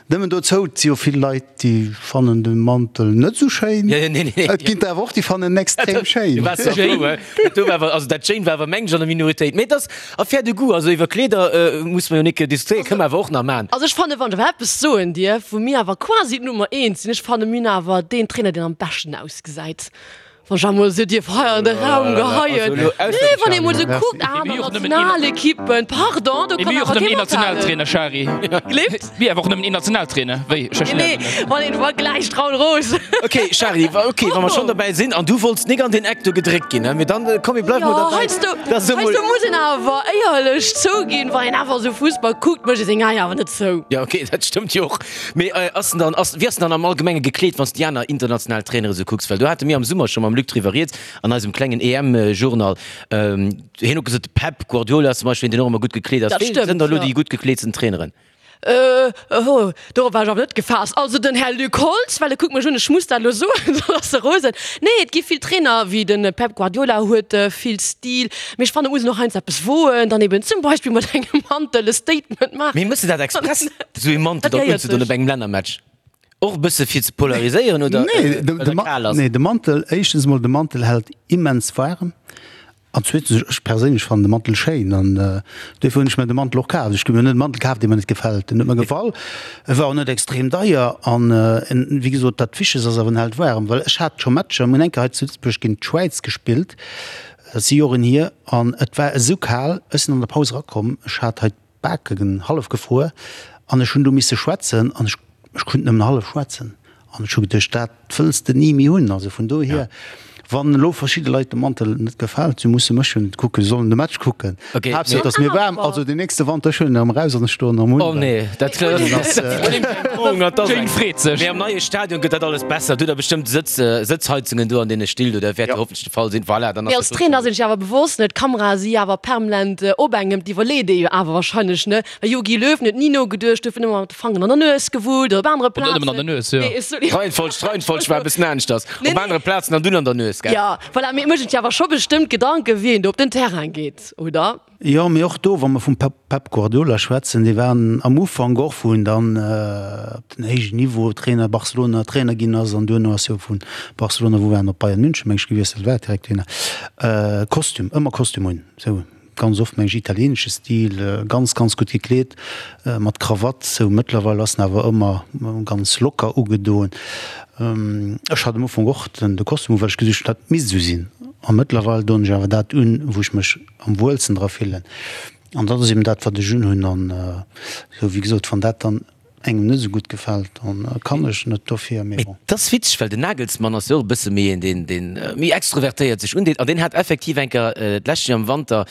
Nëmmen dozou, et si jo vill Leit, déi fannen de Mantel net esou schéin. Et ginn der awer och, déi fannen en extrem schéin. Also dat Jane war awer mengen ech an der Minoritéit. Mee et ass Affaire de goût. Also iwwer Kleeder muss mer jo nik diskutéieren, kënne mer awer och nach man. Also ech fannen, wann ech awer eppes soen dierf, wou mir awer quasi d'Nummer eent sinn, ech fanne mir hunn awer deen Trainer, deen am beschten ausgesäit. Wann ech emol esou dierf hei an de Raum geheien. Nee, wann ee mol esou kuckt, aner Nationalekippen, pardon, do kann awer kee mathalen. Shari. Gleeft? Mir awer och nëmmen een Nationaltrainer, wéi? Nee, wann een vergläicht, Raoul Roos. Ok, Shari, ok, wa mer schonn dobäi sinn, an du wollts nik an deen Eck do gedréckt ginn, mee dann, komm, mir bleiwe mol Jo, derbäi. heiansdo, heiansdo muss een awer éierlech zouginn, wann een awer esou Fussball kuckt, mécht ee seng Aen awer net zou. Jo, ok, dat stëmmt jo och. Mee ass en dann, ass, wéi ass en dann am Allgemenge gekleet, wann s de déi aner international Trainere sou kucks? Well do hate mir am Summer scho mam Luc driwwer rieds an eisem klengen EM-Journal. Hien huet gesot, de Pep Guardiola zum Beispill, deen och ëmmer gutt gekleet ass. Dat Wee stëmmt, sënn da lo jo. déi gutt gekleetsten Traineren? Oh, dorop war ech awer net gefaasst. Also den Här Luc Holtz, well e kuckt mech un, ech muss dat elo soen, soss ass e rosen. Nee, et gi vill Trainer, wéi de Pep Guardiola huet vill Stil, mee ech fannen, et muss een och heiansdo eppes woen, dann eben zum Beispill mat engem Mantel e Statement maachen. Mee méchs de dat express, esou ee Mantel Dat dann gehéiert unzedon sech. op engem Lännermatch? Och e bësse fir ze polariséieren oder Nee, de, well de, et kal ass? nee, de Mantel, éischtens emol, de Mantel hält immens waarem. An zweetens, ech perséinlech fannen de Mantel schéin an duerfir hunn ech mir de Mantel och kaf. Ech hu mir net e Mantel kaf, dee mir net gefält. Den huet mir gefall, e war och net extrem deier an wéi gesot, dat Wichtegst ass awer, en hält waarem. Well ech hat scho Matcher, mir hunn eng Kéier hei zu Lëtzebuerg géint d'Schwäiz gespillt, dat si Joren hier, an et war esou kal, ech sinn an der Paus erakomm, ech hat hei d'Baken hallef gefruer an ech hunn do misse schwätzen an ech ech konnt nëmmen hallef schwätzen an ech hu geduecht, dat wëlls de ni méi hunn. Also vun dohier, wann elo verschidde Leit de Mantel net gefält, si musse mech jo net kucken, si sollen de Match kucken. Okay, Haaptsaach et ass mir waarm. Also den nächste Wanter, ech huelen en erëm eraus an ech stoen erëm un. Oh nee, dat ass Jane freet sech. Mee am neie Stadion gëtt dat alles besser. Do hutt der bestëmmt Sëtz, Sëtzheizungen do an deene Still do, dat wäert jo hoffentlech de Fall sinn. Voilà, dann Mee ass als dat Trainer sinn ech awer bewosst, ne, d'Kamerae si awer permanent op engem, d'iwwerleet ee jo awer wahrscheinlech, ne. Well Jogi Löw huet ni nogeduecht, huet ëmmer mat de Fangeren an der Nues gewullt oder op anere Net nëmmen an der Plazen. Nues, jo. Nee, sorry. D'Reihenfolg, d'Reihenfolg war e bëssen aneschters. Nee, Op nee. anere Plazen an dunn an der Nues, gell? Jo, voilà, mee et mécht een sech awer scho bestëmmt Gedanken, wéi een do op den Terrain geet, oder? Jo, mee och do, wa mer vum Pep, Pep Guardiola schwätzen, dee war am Ufank och, wou en dann op den héijen Niveau Trainer, Barcelona Trainer ginn ass an duerno ass jo vu Barcelona, wou war en, op Bayern München, meng ech, gewiesselt war, direkt duerno, Kostüm, ëmmer Kostüm un, sou. Ganz oft meng ech italienesche Stil, ganz ganz gutt gekleet, mat Krawatt sou. Mëttlerweil ass en awer ëmmer ganz locker ugedoen. Ech hat am Ufank och den de Kostüm u well ech geduecht hunn dat misst esou sinn. A mëttlerweil doen ech awer dat un wou ech mech am wuelsten dra fillen. An dat ass eben dat wat ech unhunn. An sou wéi gesot, wann dat dann engem net esou gutt gefält, dann kann ech net dofir, mee Mee bon. 't ass witzeg, well den Nagelsmann ass jo och e bësse méi een, deen, deen méi extrovertéiert sech undeet. An deen hat effektiv eng Kéier d'lescht Joer am Wanter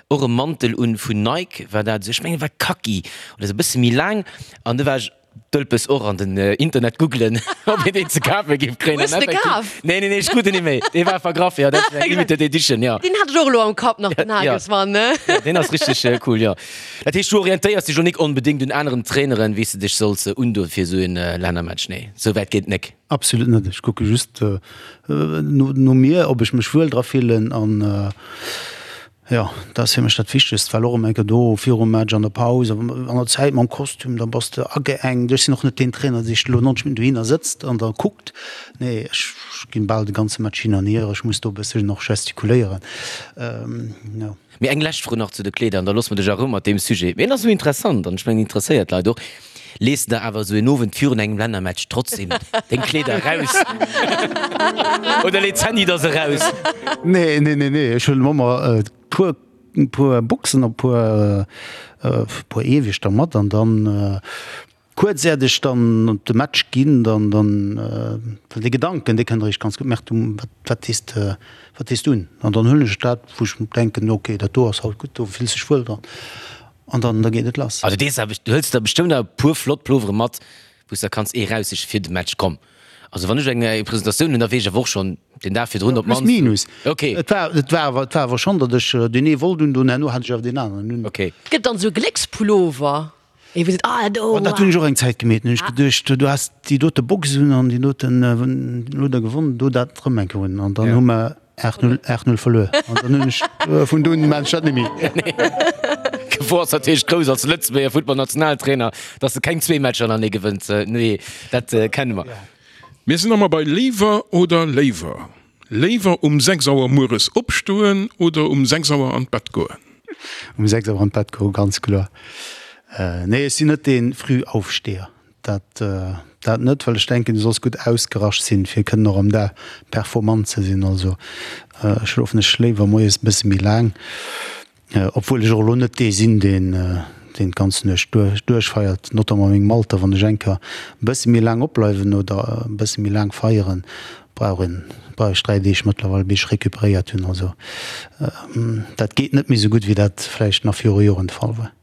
och e Mantel un vun Nike, war dat esou, ech mengen e war Kaki oder esou, e bësse méi laang. An du war ech dëlpes och an den Internet googlen, ob een deen ze kafe géif kréien. Hues An de effektiv, kaf? nee, nee, nee, ech krut en net méi, dee war vergraff, jo, dat ass eng Limited Edition, jo. Deen hat ech och elo am Kapp nach, den Ja. Nagelsmann, ne? Ja, deen ass richteg cool, jo. Dat heescht, du orientéiers dech lo nik onbedéngt un aneren Traineren, wéi s de dech solls undoen fir esou en Lännermatch? Nee, esou wäit geet et nik. Absolut net. Ech kucke just no mir, ob ech mech wuel dra fillen an jo, dat ass fir mech dat Wichtegst, well och ëm eng Kéier do virum Match, an der Paus, an der Zäit mam Kostüm, da bass de ageengt. Ech sinn och net deen Trainer, dee sech elo 90 Minutten dohinner sëtzt an da kuckt. Nee, ech ginn bal de ganze Match hin an hier. Ech muss do e bësschen och gestikuléieren, jo. Mee eng lescht Fro nach zu de Kleeder an da loosse mer dech a Rou mat deem Sujet. Mee en ass esou interessant an ech mengen, interesséiert d'Leit och. Lees de der awer esou en Owend virun engem Lännermatch trotzdem deng Kleeder eraus oder leet d'Sandy der se eraus? Nee, nee, nee, nee, ech huelen ëmmer e puer, puer Boxen a puer, puer Eewechter mat an dann. Kuerz äert ech dann op de Match ginn, dann, dann, well dee Gedanken, dee kënnt eréischt ganz gutt, Merk du, wat, wat dees de, wat dees du un? An dann huelen ech dat, wou ech denken, ok, dat do ass haut gutt, do fills dech wuel dran. An dann, da geet et lass. Also dees awer, du hëls der bestëmmt awer e puer flott Plovere mat, wou s de kanns ee raussiche fir de Match. Komm, also wann ech eng Presentatioun hunn, da weess ech awer och schonn den Dag virdrun op Plus d'mannst. minus. Ok. Et war, et war awer, et war awer schonn, datt ech deen ee wollt un, do herno hat ech awer deen aneren un. Ok. Gëtt dann esou e Gléckspullover? Ee wou seet, ah do. Oh, dat hunn ech och eng Zäit gemeet. Hunn ech geduecht, du has déi dote Box un an déi doten elo da gewonnen, do dat erëm eng Kéier un. An dann hu mer 8, 0, 8, 0 verluer. An dann hunn ech vun do un maan ech dat net méi. D'Gefor ass natierlech grouss als Lëtzebuerger Futtballnationaltrainer, dass de keng zwee Matcher hannertenee gewënns. Nee, dat kenne mer. Mir sinn nach mol bei Léiwer oder léiwer. Léiwer um 6 Auer mueres opstoen oder um 6 Auer an d'Bett goen? Um 6 Auer an d'Bett goen, ganz kloer. Nee, ech sinn net dee Frühaufsteher, dat dat net, well ech denken, du solls gutt ausgerascht sinn, fir kënnen och am Dag performant ze sinn. Also schlofen ech léiwer moies e bësse méi laang. Obwuel ech och elo net dee sinn, deen deen d'ganz Nuecht duerchfeiert, notamment a mengem Alter. Wann ech eng Kéier e bësse méi laang opbleiwen oder e bësse méi laang feieren, brauch een, brauch ech 3 Deeg mëttlerweil, bis ech recuperéiert hunn. Also dat geet net méi esou gutt, wéi dat vläicht nach viru Joren de Fall war.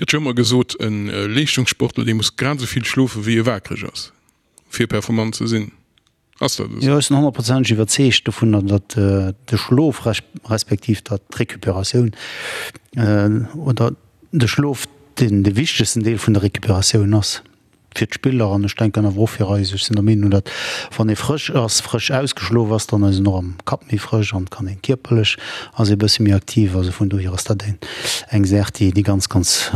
Gëtt jo ëmmer gesot, e Leeschtungssportler, dee muss grad esou vill schlofe wéi e waakreg ass, fir performant ze sinn. Ass dat esou? Jo, ech sinn honnertprozenteg iwwerzeegt dovunner, datt de Schlof respektiv datt d'Recuperatioun oder de Schlof deen de wichtegsten Deel vun der Recuperatioun ass fir d'Spiller an ech denken awer och fir eis. Ech sinn der Meenung, datt wann ee frësch ass, frësch ausgeschlof ass, dann ass een och am Kapp méi frësch an kann een kierperlech ass ee bësse méi aktiv. Also vun dohier ass dat eng Saach, déi ganz, ganz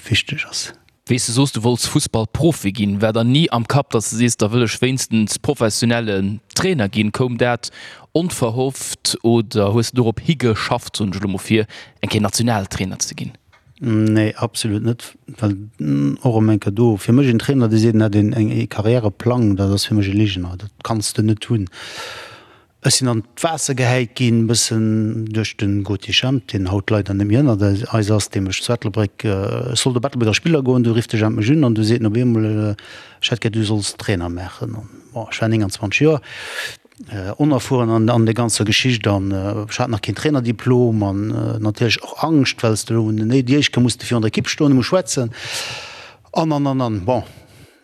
wichteg ass. Wéi s de soos, du wollts Fussballprofi ginn, war der ni am Kapp, datt s de sees, da wëll ech wéinstens professionellen Trainer ginn? Koum dat onverhofft oder hues de dorop higeschafft, soen ech elo mol, fir eng Kéier Nationaltrainer ze ginn? Nee, absolut net, well och erëm eng Kéier do, fir mech en Trainer, dee seet, en hätt een e Karriäreplang, dat ass fir mech e Ligener, dat kanns de net hunn. Ech sinn an d'Waasser gehäit ginn, e bëssen duerch de Gauthier Schemp, deen haut leider net méi ënnert eis ass, dee mech zu Ettelbréck, ech sollt op Ettelbréck als Spiller goen, du rifft de Jemp mech un an du seet en op eemol, ech hätt gär, du solls Trainer maachen. An bon, ech war 29 Joer, onerfueren an an der ganzer Geschicht an ech hat nach keen Trainerdiplom an natierlech och Angscht, well s de elo, déi éischt Kéier muss de virun der Ekipp stoen a muss schwätzen an an an an. Bon.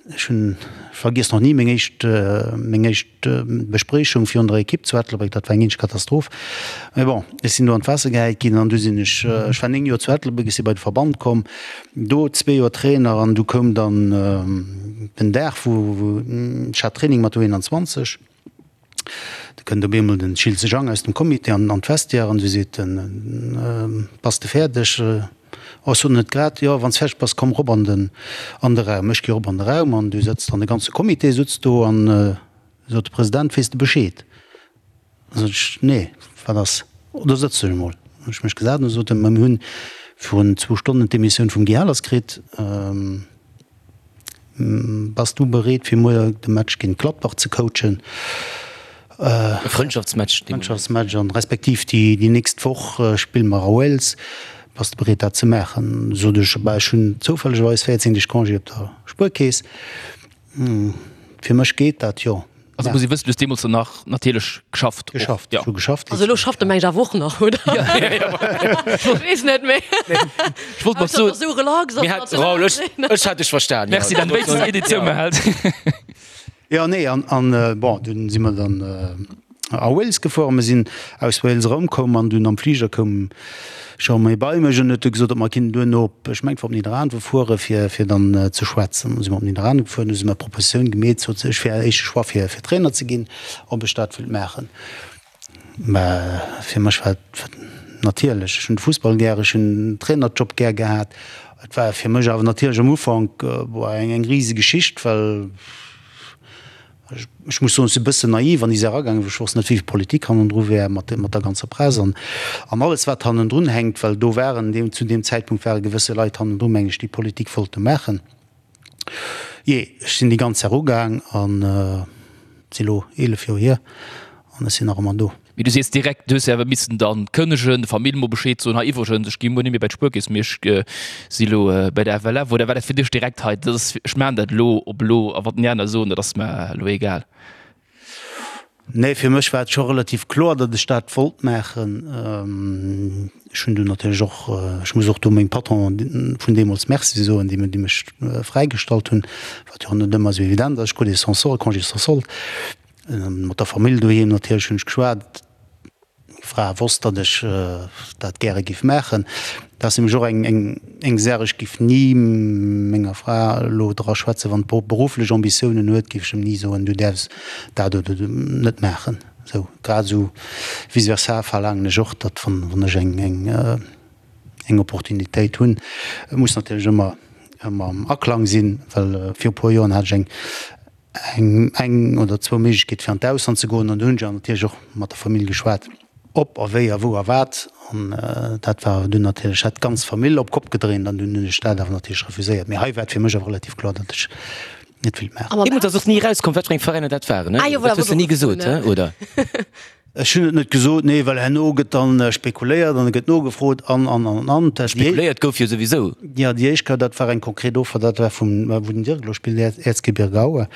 Ech hunn, ech vergiess nach ni meng éischt, meng éischt Bespriechung virun der Ekipp zu Ettelbréck, dat war eng eenzeg Katastroph. Mee bon, ech sinn do an d'Waasser gehäit ginn an du sinn ech, ech war 9 Joer zu Ettelbréck, ech si bei de Verband komm, do zwee Joer Trainer an du koum dann den Dag, wou, wou, ech hat Training mat U21. Da kënnt op eemol den Schiltze Jang aus dem Comité an an d'Vestiaire an du seet en, Bass de fäerdeg? Oh, ech sot net grad. Jo, wann s fäerdeg bass, komm rop an den an de Raum. Ech gi rop an de Raum an du sëtzt an de ganze Comité sutzt do an sot de President, Weess de Bescheed? Da sot ech, Nee, wat ass? Oh, do sëtz dech emol. Hunn ech mech gesat an du sot en, Ma mir hunn virun zwou Stonnen d'Demissioun vum Guy Ahlers kritt. Bass du bereet fir muer de Match géint Gladbach ze coachen? E Frëndschaftsmatch. Frëndschaftsmatch an respektiv déi déi nächst Woch spille mer a Wales. Bass de bereet dat ze maachen? Sot ech, bah ech hunn zoufällegerweis 14 Deeg Congé op der Spuerkeess. Fir mech geet dat, jo. Also muss ee wëssen, du hues deemools dann nach natierlech geschafft. Geschafft, ech hu geschafft. Also elo schafft e mengt awer och nach, oder? Ech weess net méi. Ech wollt mat soen. Esou relax Mir hat, Raoul, ech, ech hat dech verstan. Merci, dann wéinstens een, deen zoumehält. Jo, nee, an, an bon, dunn si mer dann a Wales gefuer a mir sinn aus Wales erëmkomm an dunn am Fliger koum Jean-Marie bei mech an huet du gesot, ob mer kinnten duerno op, ech mengen et war op Nidderaanwen fuere fir, fir dann ze schwätzen. Du si mer op Nidderaanwen gefuer, du si mer Propositioun gemeet, sot se, ech wär éischte Choix fir, fir Trainer ze ginn, ob ech dat wëllt maachen. Mä fir mech war et natierlech, ech hunn de Fussball gär, ech hunn den Trainerjob gär gehat. Et war fir mech awer natierlech am Ufank, boah, eng, eng rise Geschicht, well Ech muss soen, ech si e bëssen naiv an déi Saach agaangen, well ech wosst net, wéi vill Politik hannendru wär mat der ganzer Press an alles, wat hannendrun hänkt, well do waren deem, zu deem Zäitpunkt ware gewësse Leit hannendru, meng ech, déi Politik wollte maachen. Jee, ech sinn déi ganz Saach ugaang an et si lo 11 Joer hier an ech sinn nach ëmmer do. Mee du sees direkt, du hues jo awer missen dann kënnegen, der Famill mol Bescheed soen, hei iwwregens, ech gi muer net méi bei d'Spuerkeess, mee ech si lo bei der FLF. Oder war dat fir dech direkt, hei dat ass, ech maachen dat elo op elo a wat déi aner soen, dat ass mer elo egal? Nee, fir mech war et scho relativ kloer, datt ech dat wollt maachen. Ech hunn dunn natierlech och, ech muss och do mengem Patron vun deemools Merci soen, déi mech fräigestallt hunn, wat jo och net ëmmer esou evident ass. Ech krut ee sans solde, Congé sans solde. Mat der Famill doheem natierlech hunn ech geschwat. Meng Fra wosst, datt ech dat gäre giff maachen. Dat ass nämlech och eng Saach, ech giff ni menger Fra elo dra schwätzen, wann d'berufflech Ambitiounen huet, giff ech em ni soen, du däerfs dat oder net maachen. Esou grad esou vice versa verlaangen ech och, datt wann ech eng Opportunitéit hunn, et muss natierlech ëmmer ëmmer am Aklang sinn, well viru puer Joren hat ech eng eng eng oder zwou Méiglechkeet fir an d'Ausland ze goen an do hunn ech awer natierlech och mat der Famill geschwat, ob a wéi a wou a wat an dat war dunn natierlech hat d'ganz Famill op d'Kopp gedréint an dunn hunn ech dat awer natierlech refuséiert. Mee hei war et fir mech awer relativ kloer, datt ech net wéilt maachen. Deemools ass och ni erauskomm, wat fir eng Veräiner dat waren, ne? Dat hues de ni gesot, he, oder? Ech hunn et net gesot, nee, well herno gëtt dann spekuléiert an et gëtt nogefrot an, an, an, an. Spekuléiert gouf jo souwisou. Jo, déi éischt Kéier, dat war eng konkret Offer, dat war vum, wou den Dirk elo spillt, Erzgebirge Aue.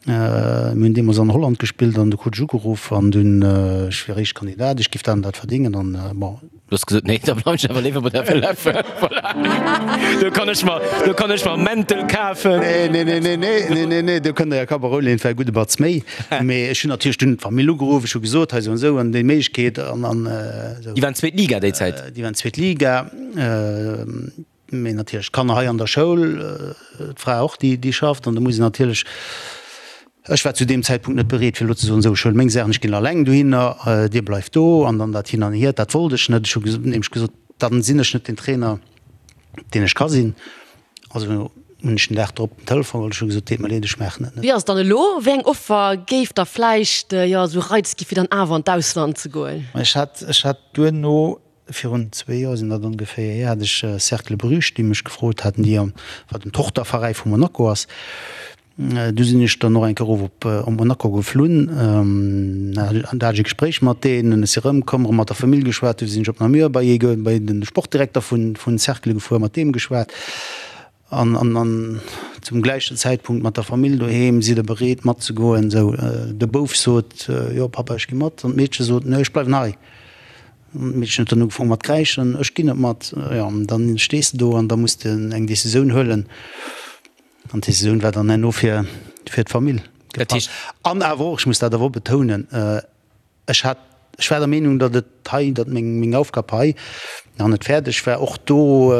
Mir hunn deemools an Holland gespillt an du krut ech ugeruff an dunn, ech wier éischt Kandidat, ech giff dat an dat verdéngen an bon. Du hues gesot, nee, da bleiwen ech awer léiwer bei der FLF. Voilà. Do kann ech mer, do kann ech mer Mäntel kafen. Nee, nee, nee, nee, nee, nee, nee, nee, do kënnt Der jo Kapp a Rou leeën, et war e gudde Batz méi. Mee ech hunn natierlech dunn d'Famill ugeruff, ech hu gesot, hei esou an esou an déi Méiglechkeet an, an esou. Déi waren zweet Liga déi Zäit? Déi waren zweet Liga. Mee natierlech d'Kanner hei an der Schoul, d'Fra och, déi, déi schafft. An do muss een natierlech, ech war zu deem Zäitpunkt net bereet, fir elo ze soen, esou, ech huele meng Saachen, ech ginn eleng dohinner, dir bleift do. An dann dat hin an hier, dat wollt ech net. Ech hu nämlech gesot, dann sinn ech net den Trainer, deen ech ka sinn. Also hunn ech den Dag drop den Telefon geholl, ech hu gesot, deet mer leed, ech maachen et net. Wéi ass et dann elo? Wéi eng Offer géif der vläicht, jo, esou Reiz gi fir dann awer an d'Ausland ze goen? Ech hat, ech hat duerno Virun zwee Joer sinn dat ongeféier hier, hat ech Cercle Bruges, déi mech gefrot haten, déi am, wat en Tochterveräi vu Monaco ass. Du sinn ech dann och eng Kéier erof op op Monaco geflunn, an da hat ech e Gespréich mat deenen. Ech si erëmkomm, erëm mat der Famill geschwat. Du sinn ech op Namur bei ee, bei de Sportdirekter vun vun Cercle gefuer, mat deem geschwat. An an an zum gläichen Zäitpunkt mat der Famill doheem, sidd der bereet matzegoen? Sou, de Bouf sot, jo Papa, ech gi mat. An d'Meedche sot, nee, ech bleiwen hei. An d'Meedchen huet dann ugefaangen mat kräischen, ech ginn net mat. Jo, an dann stees de do an da muss de eng Decisioun huelen. An d'Decisioun war dann herno fir fir d'Famill gefall. An awer och, ech muss dat awer och betounen, Ech hat, ech war der Meenung, datt et hei, datt meng, meng Aufgab hei nach net fäerdeg war. Och do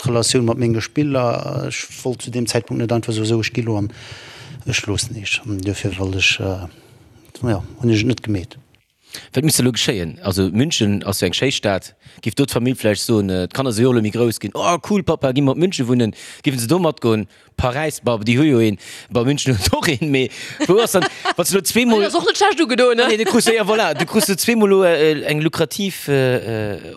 d'Relatioun mat menge Spiller, ech wollt zu deem Zäitpunkt net einfach soen, esou ech gi lo an ech loossen iech. An duerfir wollt ech, jo, hunn ech et net gemeet. Wat misst elo geschéien? Also München ass jo eng schéi Stad. Giff do d'Famill vläicht soen, d'Kanner si jo och elo méi grouss ginn, oh cool Papa, gi mer op München wunnen? Giffen se do matgoen? Paräis, bah, déi hu jo een, bah, München huet och een, mee wou ass dann, wann s de elo zweemol. Deen ass och net schlecht ugedoen, ne? Nee, du krus, jo, voilà, du krus elo zweemol elo eng lukrativ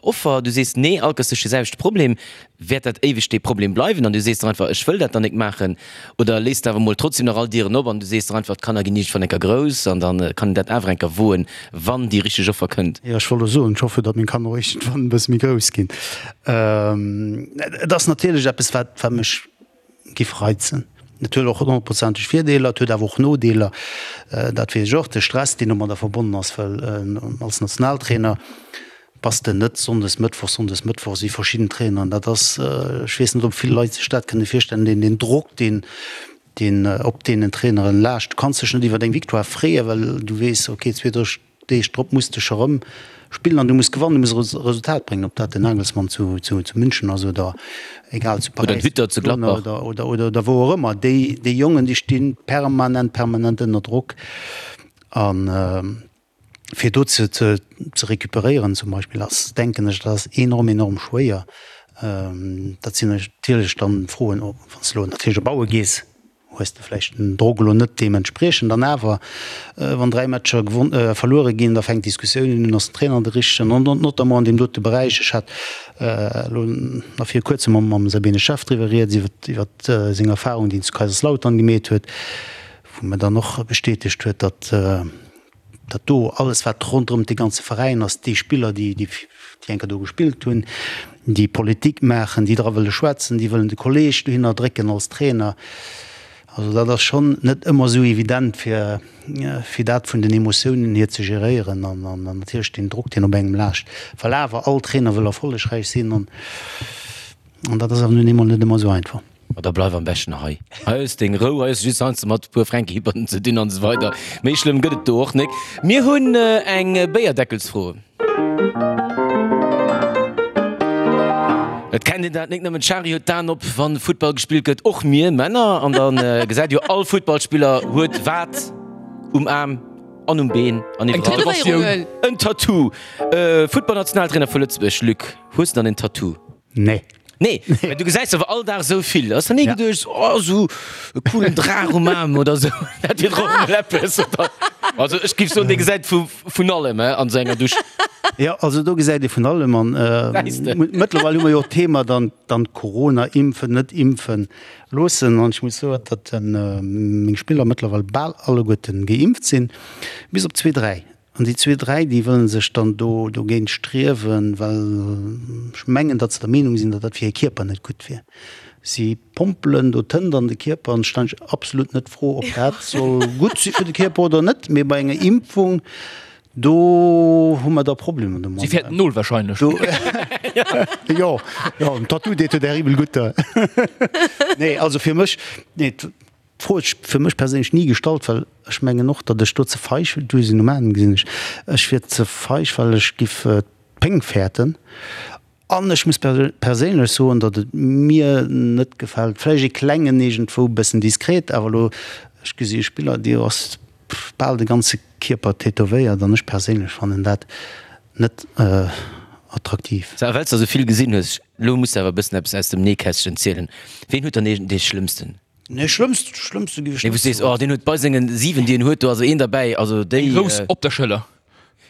Offer, du sees, nee, alt ass duerch de selwechte Problem, wäert dat éiweg dee Problem bleiwen an du sees der einfach, ech wëll dat dann nik maachen, oder léiss de awer mol trotzdem nach all Dieren op an du sees der einfach, d'Kanner ginn iergendwann enker grouss an dann kann een dat awer enker woen, wann déi richteg Offer kënnt. Jo, ech wollt elo soen, ech hoffen, datt meng Kanner och iergendwann e bësse méi grouss ginn. Et ass natierlech eppes, wat, wat mech giff reizen. Et huet och honnertprozenteg Virdeeler, et huet awer och Nodeeler, dat weess ech och, de Stress, deen domadder verbonnen ass, well als Nationaltrainer bass de net sonndes, mëttwochs, sonndes, mëttwochs wéi verschidden Traineren. Dat ass, ech weess net, ob vill Leit sech dat kënne virstellen, deen, deen Drock, deen, deen op deenen Traineren laascht. Du kanns dech net iwwer eng Victoire freeën, well du weess, okay, 2, 3 Deeg drop muss de scho rëm spillen an du muss gewannen, du muss e Resultat bréngen, ob dat den Nagelsmann zu München ass oder egal zu Paräis oder oder wou och ëmmer. Déi déi Jongen déi sti permanent permanent ënner Drock a fir do ze ze recuperéieren zum Beispill ass, denken ech, dat ass enorm enorm schwéier. Dat sinn natierlech dann Froen, wann s de elo natierlech op Aue gees, hues de vläicht den Drock elo net deementspriechend. An awer, wann 3 Matcher verluere ginn, da fänkt d'Diskussioun un, ass den Trainer de richtegen? An notamment an deem dote Beräich, ech hat elo nach viru kuerzem mam Sabine Schaaf driwwer rieds, iwwer seng Erfahrung, déi en zu Kaiserslautern gemeet huet, wou mer dann och bestätegt huet, datt. Dat do, alles wat ronderëm dee ganze Veräin ass, déi Spiller, déi déi eng Kéier do gespillt hunn, déi Politik maachen, déi dra wëlle schwätzen, déi wëllen de Kolleeg dohinner drécken als Trainer. Also dat ass schonn net ëmmer esou evident fir fir dat vun den Emotiounen hier ze geréieren an an natierlech deen Drock, deen op engem laascht, well awer all Trainer wëll erfollegräich sinn an an dat ass awer nun eemol net ëmmer esou einfach. Ma da bleif am beschten hei. Hei hues deng Rou, hei hues de just heiansdo mat e puer Fränkihippern ze dinn an esou weider. Méi schlëmm gëtt et do och nek. Mir hunn eng Béierdeckelsfro. Et kennt een dat nek nëmmen d'Shari huet d'Aen op, wann Futtball gespillt gëtt, och mir Männer. An dann gesäit jo all Futtballspiller huet wat um Aarm an um Been an iwwerall. En Tattoo. Futtballnationaltrainer vu Lëtzebuerg, Luc, hues de dann en Tattoo? Nee. Nee, mä du gesäis awer all Dag esou vill. Ass der ni geduecht, oh, esou e coolen Draach um Aarm oder esou, dat wier dach och emol eppes, oder? Also ech géif soen, dee gesäit vu vun allem, he, an esou enger Dusch. Jo, also do gesäit ee vun allem an mëttlerweil hu mer jo och d'Thema dann, dann Corona, impfen, net impfen loossen an ech muss soen, datt meng Spiller mëttlerweil bal alleguerten geimpft sinn, bis op zwee, dräi. An déi zwee, dräi, déi wëlle sech dann do dogéint striewen, well ech mengen, datt se der Meenung sinn, datt dat fir hir Kierper net gutt wier. Si pompelen do Tënt an de Kierper an ech stellen mech absolut net d'Fro, ob dat soll gutt si fir de Kierper oder net. Mee bei enger Impfung, do hu mer da Problemer domadder. Si fäerten d'Nol wahrscheinlech. Jo, jo, en Tattoo deet jo terribel gutt. Nee, also fir mech, nee. D'Fro huet sech fir mech perséinlech ni gestallt, well ech mengen och, datt ech do ze feig, du sinn um Aen, gesinn ech, ech wier ze feig, well ech giff d'Péng fäerten. An ech muss perséinlech soen, datt et mir net gefält, vläicht ee klengen iergendwou, e bëssen diskret, awer elo, ech gesi e Spiller, dee ass bal de ganze Kierper tätowéiert an ech perséinlech fannen dat net attraktiv. Sou, a well s de esou vill gesinn hues, elo muss de awer e bëssen eppes aus dem Nähkästchen zielen, Ween huet dann dee schlëmmsten? Nee, schlëmmst, schlëmmste giff ech Nee, wou net s sees, oh, deen huet bei sengen 7, déi en huet, do ass een derbäi, also déi. Eng Rous op der Schëller.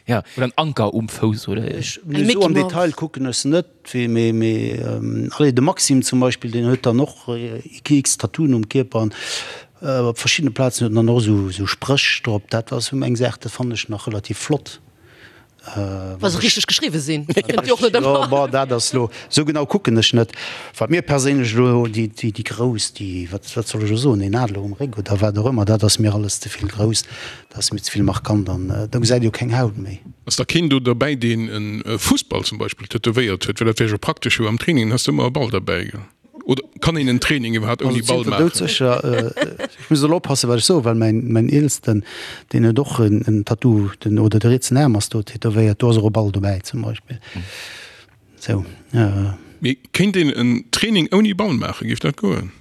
Ja. Oder en Anker um Fouss, oder? Ech, nee, esou am Detail kucken ech se net, wéi, mee, mee, allez, de Maxime zum Beispill, deen huet dann och x Tattooen um Kierper an op verschiddene Plazen huet en dann och esou, esou Spréch drop. Dat ass esou eng Saach, dat fannen ech nach relativ flott. Wa se richteg geschriwwe sinn. Jo, bon, dat ass elo, esou genau kucken ech net. Wat mir perséinlech elo, déi, déi grouss, déi, wat, wat soll ech elo soen, een Adler um Réck oder wat och ëmmer, dat ass mir alles ze vill grouss, dat ass mir ze vill markant an da gesäit ee jo keng Haut méi. Ass da keen do derbäi, deen e Fussball zum Beispill tätowéiert huet? Well dat wär jo praktesch, jo am Training has de ëmmer e Ball derbäi, gell? Oder kann een en Training iwwerhaapt ouni Ball maachen? Doudsécher. Ech muss elo oppassen, wat ech soen, well mäin, mäin Eelsten, deen huet och en, en Tattoo, den, oder de rietsen Aarm ass do tätowéiert, do ass och e Ball dobäi zum Beispill. Sou. Mee kéint een en Training ouni Ball maachen? Géif dat goen?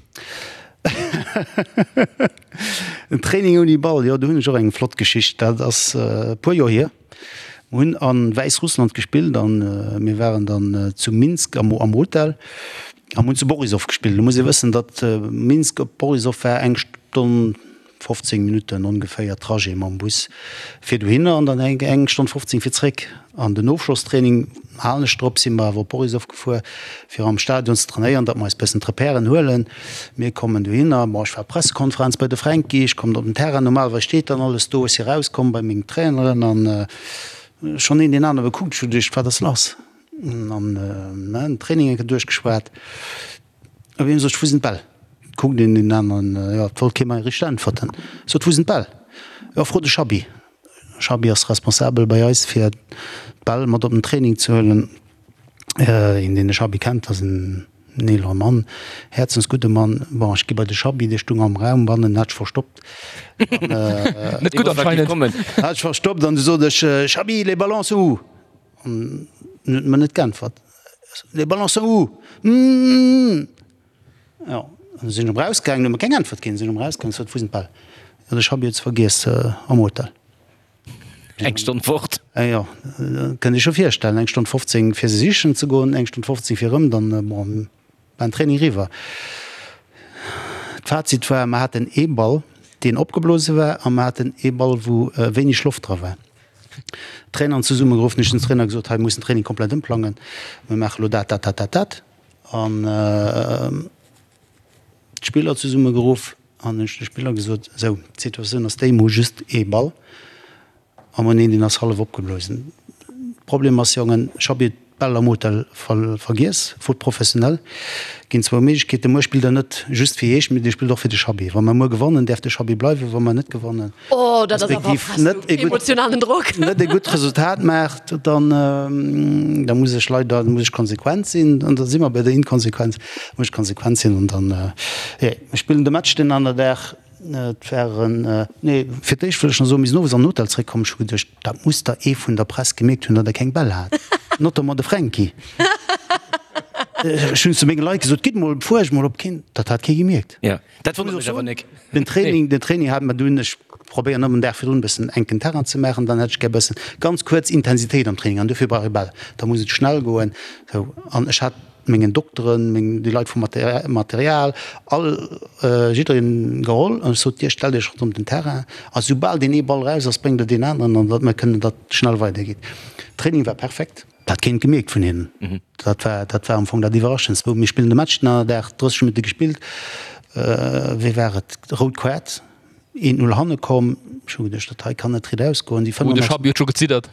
En Training ouni Ball, jo, do hunn ech och eng flott Geschicht. Dat ass e puer Joer hier. Mir hunn a Wäissrussland gespillt an mir waren dann zu Minsk am am Hotel a mir hunn zu Borisov gespillt. Lo muss ee wëssen, datt Minsk op Borisov war eng Stonn 15 Minutten ongeféier Trajet mam Bus fir dohinner an dann eng eng Stonn 15 fir zréck. An den Ofschlosstraining, halen ech drop, si mer awer op Borisov gefuer fir am Stadion ze trainéieren, datt mer eis bëssen d'Repèren huelen. Mir kommen dohinner, bon, ech war Pressekonferenz bei de Fränki, ech kommen op den Terrain, normalerweis steet dann alles do, ech si rauskomm bei meng Traineren an schonn een deen anere gekuckt, ech hu geduecht, wat ass lass? An den Training eng Kéier duerchgeschwat, op eemol sot ech, wou sinn d'Bäll? Kuckt een deen aneren, jo, et wollt kee mei richteg äntwerten. Sot, wou sinn d'Bäll? Jo, fro de Schabi. Schabi ass responsabel bei eis fir d'Bäll mat op den Training ze huelen. Een deen de Schabi kennt, ass en eelere Mann, häerzensgudde Mann. Bon, ech gi bei de Schabi, dee stung am Raum bannen, hat sech verstoppt. Net gutt anscheinend. Hat sech verstoppt an du sot ech, Schabi, les ballons sont où? An en huet mer net geäntwert. Les ballons sont où? Mmh. Jo, an du sinn ech erëm rausgaangen, huet mer keng Äntwert ginn, sinn ech erëm rausgaangen, sot, wou sinn d'Bäll? Jo, de Schabi huet se vergiess am Hotel. Eng Stonn fort. Jo, kënnt Iech scho virstellen, eng Stonn 15 fir se sichen ze goen, eng Stonn 15 fir erëm, dann, bon, war den Training eriwwer. D'Fazit war, mer haten ee Ball, deen opgeblose war, a mer haten ee Ball, wou wéineg Loft dra war. D'Traineren zesummegeruff, hunn ech den Trainer gesot, hei, mir mussen den Training komplett ëmplangen, mir maache lo dat, dat, dat, dat, dat. An d'Spiller zesummegeruff an hunn ech de Spiller gesot, esou, d'Situatioun ass déi, mir hu just ee Ball. A mer hunn een, deen ass hallef opgeblosen. Problem ass, Jongen, ech hab iert d'Bäll am Hotel vergiess. Faute professionnelle. Ginn zwou Méiglechkeeten. Muer spillt der net just fir iech, mee dir spillt och fir de Chabbi. Wa mer muer gewannen, däerf de Chabbi bleiwen. Wa mer net gewannen, Oh, dat ass awer respektiv net e gutt, emotionalen Drock. net e gutt Resultat maacht, dann, da muss ech leider, da muss ech konsequent sinn. An da si mer bei der Inkonsequenz. Da muss ech konsequent sinn an dann, jo, mir spillen de Match deen aner Dag. Et waren, nee, fir d'éischt wëll ech nach soen, mir sinn owes an den Hotel zréckkomm, ech hu geduecht, dat muss der ee vun der Press gemierkt hunn, datt e keng Bäll hat, notamment de Fränki. Ech hunn zu menge Leit gesot, gitt mol, fuergt mol, ob keen, dat hat kee gemierkt. Jo, dat wonnert mech awer nik. Den Training, den Training hat mer dunn, ech probéieren ëmmer en Dag virdrun e bëssen enken Terrain ze maachen, dann hätt ech gär e bëssen ganz kuerz Intensitéit am Training an dofir brauch ee Bäll, da muss et schnell goen, sou. An ech hat mengen Dokteren, meng, déi Leit vum Material, all, jiddereen geholl an ech sot, Dir stellt Iech ronderëm den Terrain a soubal deen ee Ball raus ass, bréngt Der deen aneren an datt mer kënnen, datt schnell weidergeet. Training war perfekt. Dat hat keen gemierkt vun hinnen. Dat war, dat war am Fong dat Iwwerraschendst. Mir spillen de Match den anere Dag, 30 Minutte gespillt, wéi war et, rout Kaart. Een 0 hanne komm. Ech hu geduecht, dat hei kann net riit ausgoen. Déi Oh, de Schabi huet scho geziddert.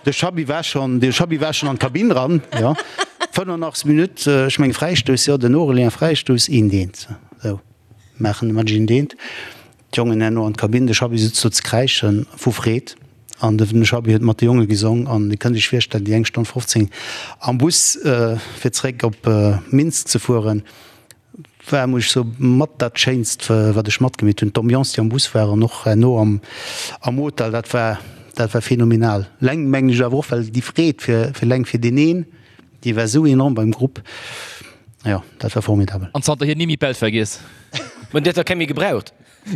De Schabi war schonn, de Schabi war schonn an d'Kabinn ran, jo. 85. Minutt, ech menge Fräistouss, jo, den Aurélien Fräistouss, eent eent. Sou, maachen de Match eent eent. D'Jongen herno an d'Kabinn, de Schabi sutz do ze kräischen vu Freed an de Schabi huet mat de Jonge gesong an Dir kënnt Iech virstellen, déi eng Stonn 15 am Bus fir zeréck op Minsk ze fueren, War, muss ech soen, mat dat schéinst wat ech matgemeet hunn. D'Ambiance déi am Bus war an och herno am am Hotel, dat war dat war phänomenal. Leng mengen ech awer och, well déi Freed fir fir leng fir deen een, déi war esou enorm beim Grupp. Jo, dat war formidabel. An zanterhier ni méi d'Bäll vergiess. Mä dir hutt der keng méi gebraucht.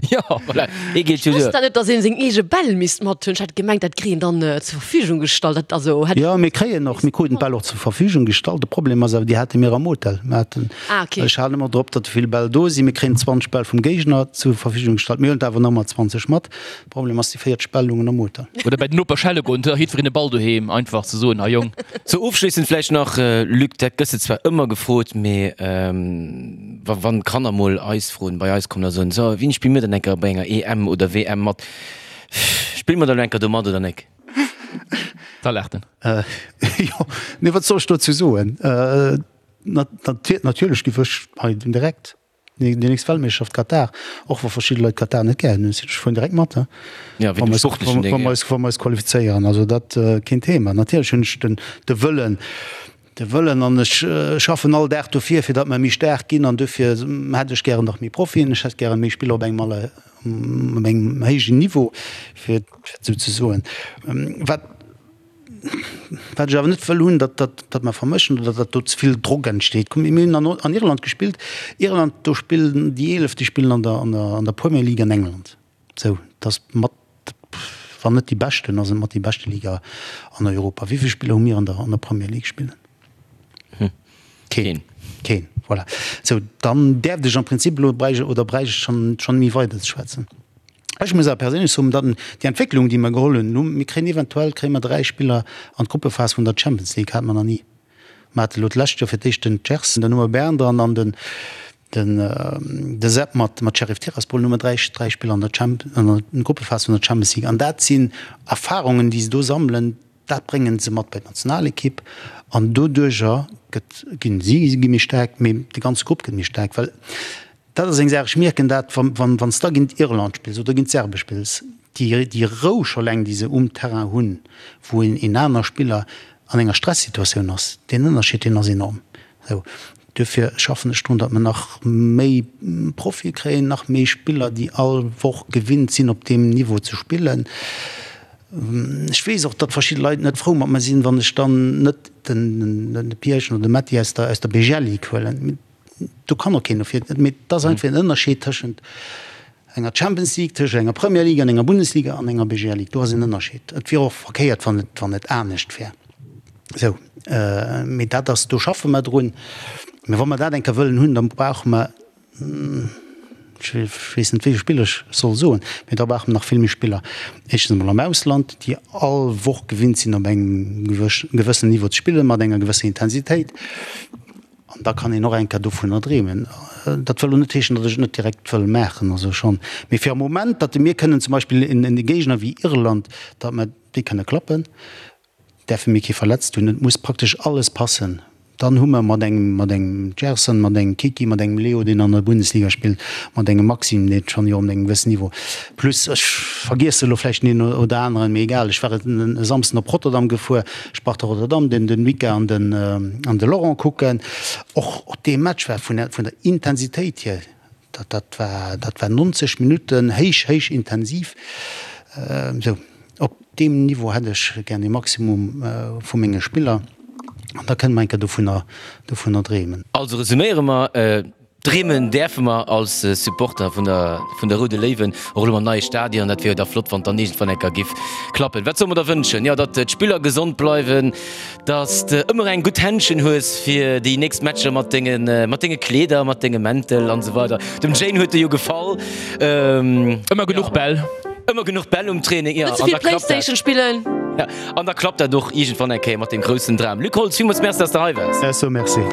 Jo, voilà, ee geet jo Ech wosst duer. dat net, dass een seng eege Bäll misst mat hunn. Ech hat gemengt, dat kritt een dann zur Verfügung gestallt. Dat also hätt Jo, mir kréien och, mir kruten d'Bäll och zur Verfügung gestallt. De Problem ass awer, déi hate mir am Hotel. Mir haten, Ah, okay. ech halen ëmmer drop, datt vill Bäll do sinn. Mir kréien 20 Bäll vum Géigner zur Verfügung gestallt. Mir huelen der awer nach ëmmer 20 mat. De Problem ass, déi 40 Bäll lungen am Hotel. Oder bei den Noper schelle goen, da jiddwereen e Ball doheem, einfach ze soen, hei Jong. Sou, ofschléissend vläicht nach, Luc, dat gëss de zwar ëmmer gefrot, mee Wa wann d'Kanner mol eis froen, bei eis kommen a soen, so, wéini spille mir dann eng Kéier bei enger EM oder WM mat? Spille mer da lo eng Kéier do mat oder nek? Da laacht en. Jo, nee, wat soll ech dozou soen? Natierlech giff ech hei direkt déi nächst Weltmeeschterschaft Katar, och wa verschidde Leit Katar net gären hunn, ech fueren direkt mat, Ja, wéi dem sportlechen Ding, wa mer eis qualifizéieren. Also dat keen Thema. Natierlech hunn ech de Wëllen, De Wëllen, an ech schaffen all Dag dofir, fir datt mer méi staark ginn, an dofir hätt ech gären nach méi Profien, ech hätt gären méi Spiller op engem aller, op engem héijen Niveau, fir et esou ze soen. Wat, wat ech awer net wëll hunn, datt, datt, datt mer vermëschen oder datt do ze vill Drock entsteet. Kuck, mir hunn an, an Irland gespillt, Irland, do spillen déi 11, déi spillen an der, an der, an der Premier League an England. Sou, et ass mat, wann net déi beschten, ass et mat déi beschte Liga an Europa. Wéi vill Spiller hu mir an der, an der Premier League spillen? Keen. Keen, voilà. Sou, dann däerft ech am Prinzip elo bräicht oder bräicht ech schonn, schonn méi weider ze schwätzen. Ech muss awer perséinlech soen, datt déi Entwécklung, déi mer geholl hunn, elo, mir kréien eventuell kréie mer 3 Spiller an d'Gruppephas vun der Champions League, hate mer nach ni. Mer hate elo d'lescht Joer fir d'éischt den Gerson, dann hu mer Bern dran an den, Den de Sepp mat mat Sheriff Tiraspol Nummer 3 3 Spiller an der Champ an der Gruppephas vun der Champions League. An dat sinn Erfarungen, déi se do sammelen, dat bréngen se mat bei d'Nationalekipp an doduerjer gëtt ginn si gi méi staark, mee de ganze Grupp gëtt méi staark. Well dat ass eng Saach, ech mierken dat, wann wann wann s da géint Irland spills oder géint d'Serbe spills, déi déi Rou scho eleng, déi se um Terrain hunn, wou een een aner Spiller an enger Stressituatioun ass, deen Ënnerscheed, deen ass enorm. Sou, duerfir schaffen ech drun, datt mer nach méi Profie kréien, nach méi Spiller, déi all Woch gewinnt sinn, op deem Niveau ze spillen. Ech weess och, datt verschidde Leit net frou mat mer sinn, wann ech dann net den Pierchen oder de Metty aus der, aus der BGL Ligue huelen. Do kann och keen dofir. Mee et ass einfach en Ënnerscheed tëschent enger Champions League, tëschent enger Premier League an enger Bundesliga an enger BGL Ligue. Do ass en Ënnerscheed. Et wier och verkéiert, wann et, wann et anescht wär. Sou, mee dat ass, do schaffe mer drun. Mee wa mer dat eng Kéier wëllen hunn, da brauche mer, ech weess net, wéi vill Spiller ech soll soen, mee da brauche mer nach vill méi Spiller, éischtens emol am Ausland, déi all Woch gewinnt sinn, op engem gewëssenen Niveau ze spillen, mat enger gewësser Intensitéit. An da kann een och eng Kéier dovunner dreemen. Dat wëll elo net heeschen, datt ech et net direkt wëll maachen, also schonn, mee fir am Moment, datt mir kënnen zum Beispill en Géigner wéi Irland, datt mer déi kënne klappen, däerfe mir kee verletzt hunn. Et muss praktesch alles passen. Dann hu mer mat engem, mat engem Gerson, mat engem Kiki, mat engem Leo, deen an der Bundesliga spillt, mat engem Maxime, dee schonn jo op engem gewëssen Niveau, plus ech vergiesse elo vläicht den een oder aneren, mee egal, ech war e Samsden op Rotterdam gefuer, Sparta Rotterdam, den den Mika an den an de Laurent kucken. Och och dee Match war vun der vun der Intensitéit hier, dat dat war dat war 90 Minutten héich héich intensiv. Sou op deem Niveau hätt ech gär de Maximum vu menge Spiller an da kënne mer eng Kéier dovunner dovunner dreemen. Also resuméiere mer, Dreemen däerfe mer als Supporter vun der vun der Roude Léiwen, och elo mam neie Stadion. Dat wier jo da flott, wann et dann iergendwann eng Kéier giff klappen. Wat solle mer der wënschen? Jo, datt d'Spiller gesond bleiwen, datt s de ëmmer eng gutt Händschen hues fir déi nächst Matcher mat denge mat denge Kleeder, mat denge Mäntel an esou weider. Dem Jane huet e jo gefall. Ëmmer genuch Bäll. Ëmmer genuch Bäll um Training, jo. Net ze vill Playstation spillen. Ja, an da klappt dat och iergendwann eng Kéier mat deem groussen Dram. Luc Holtz, villmools Merci, datt s de hei waars. Ech soe Merci.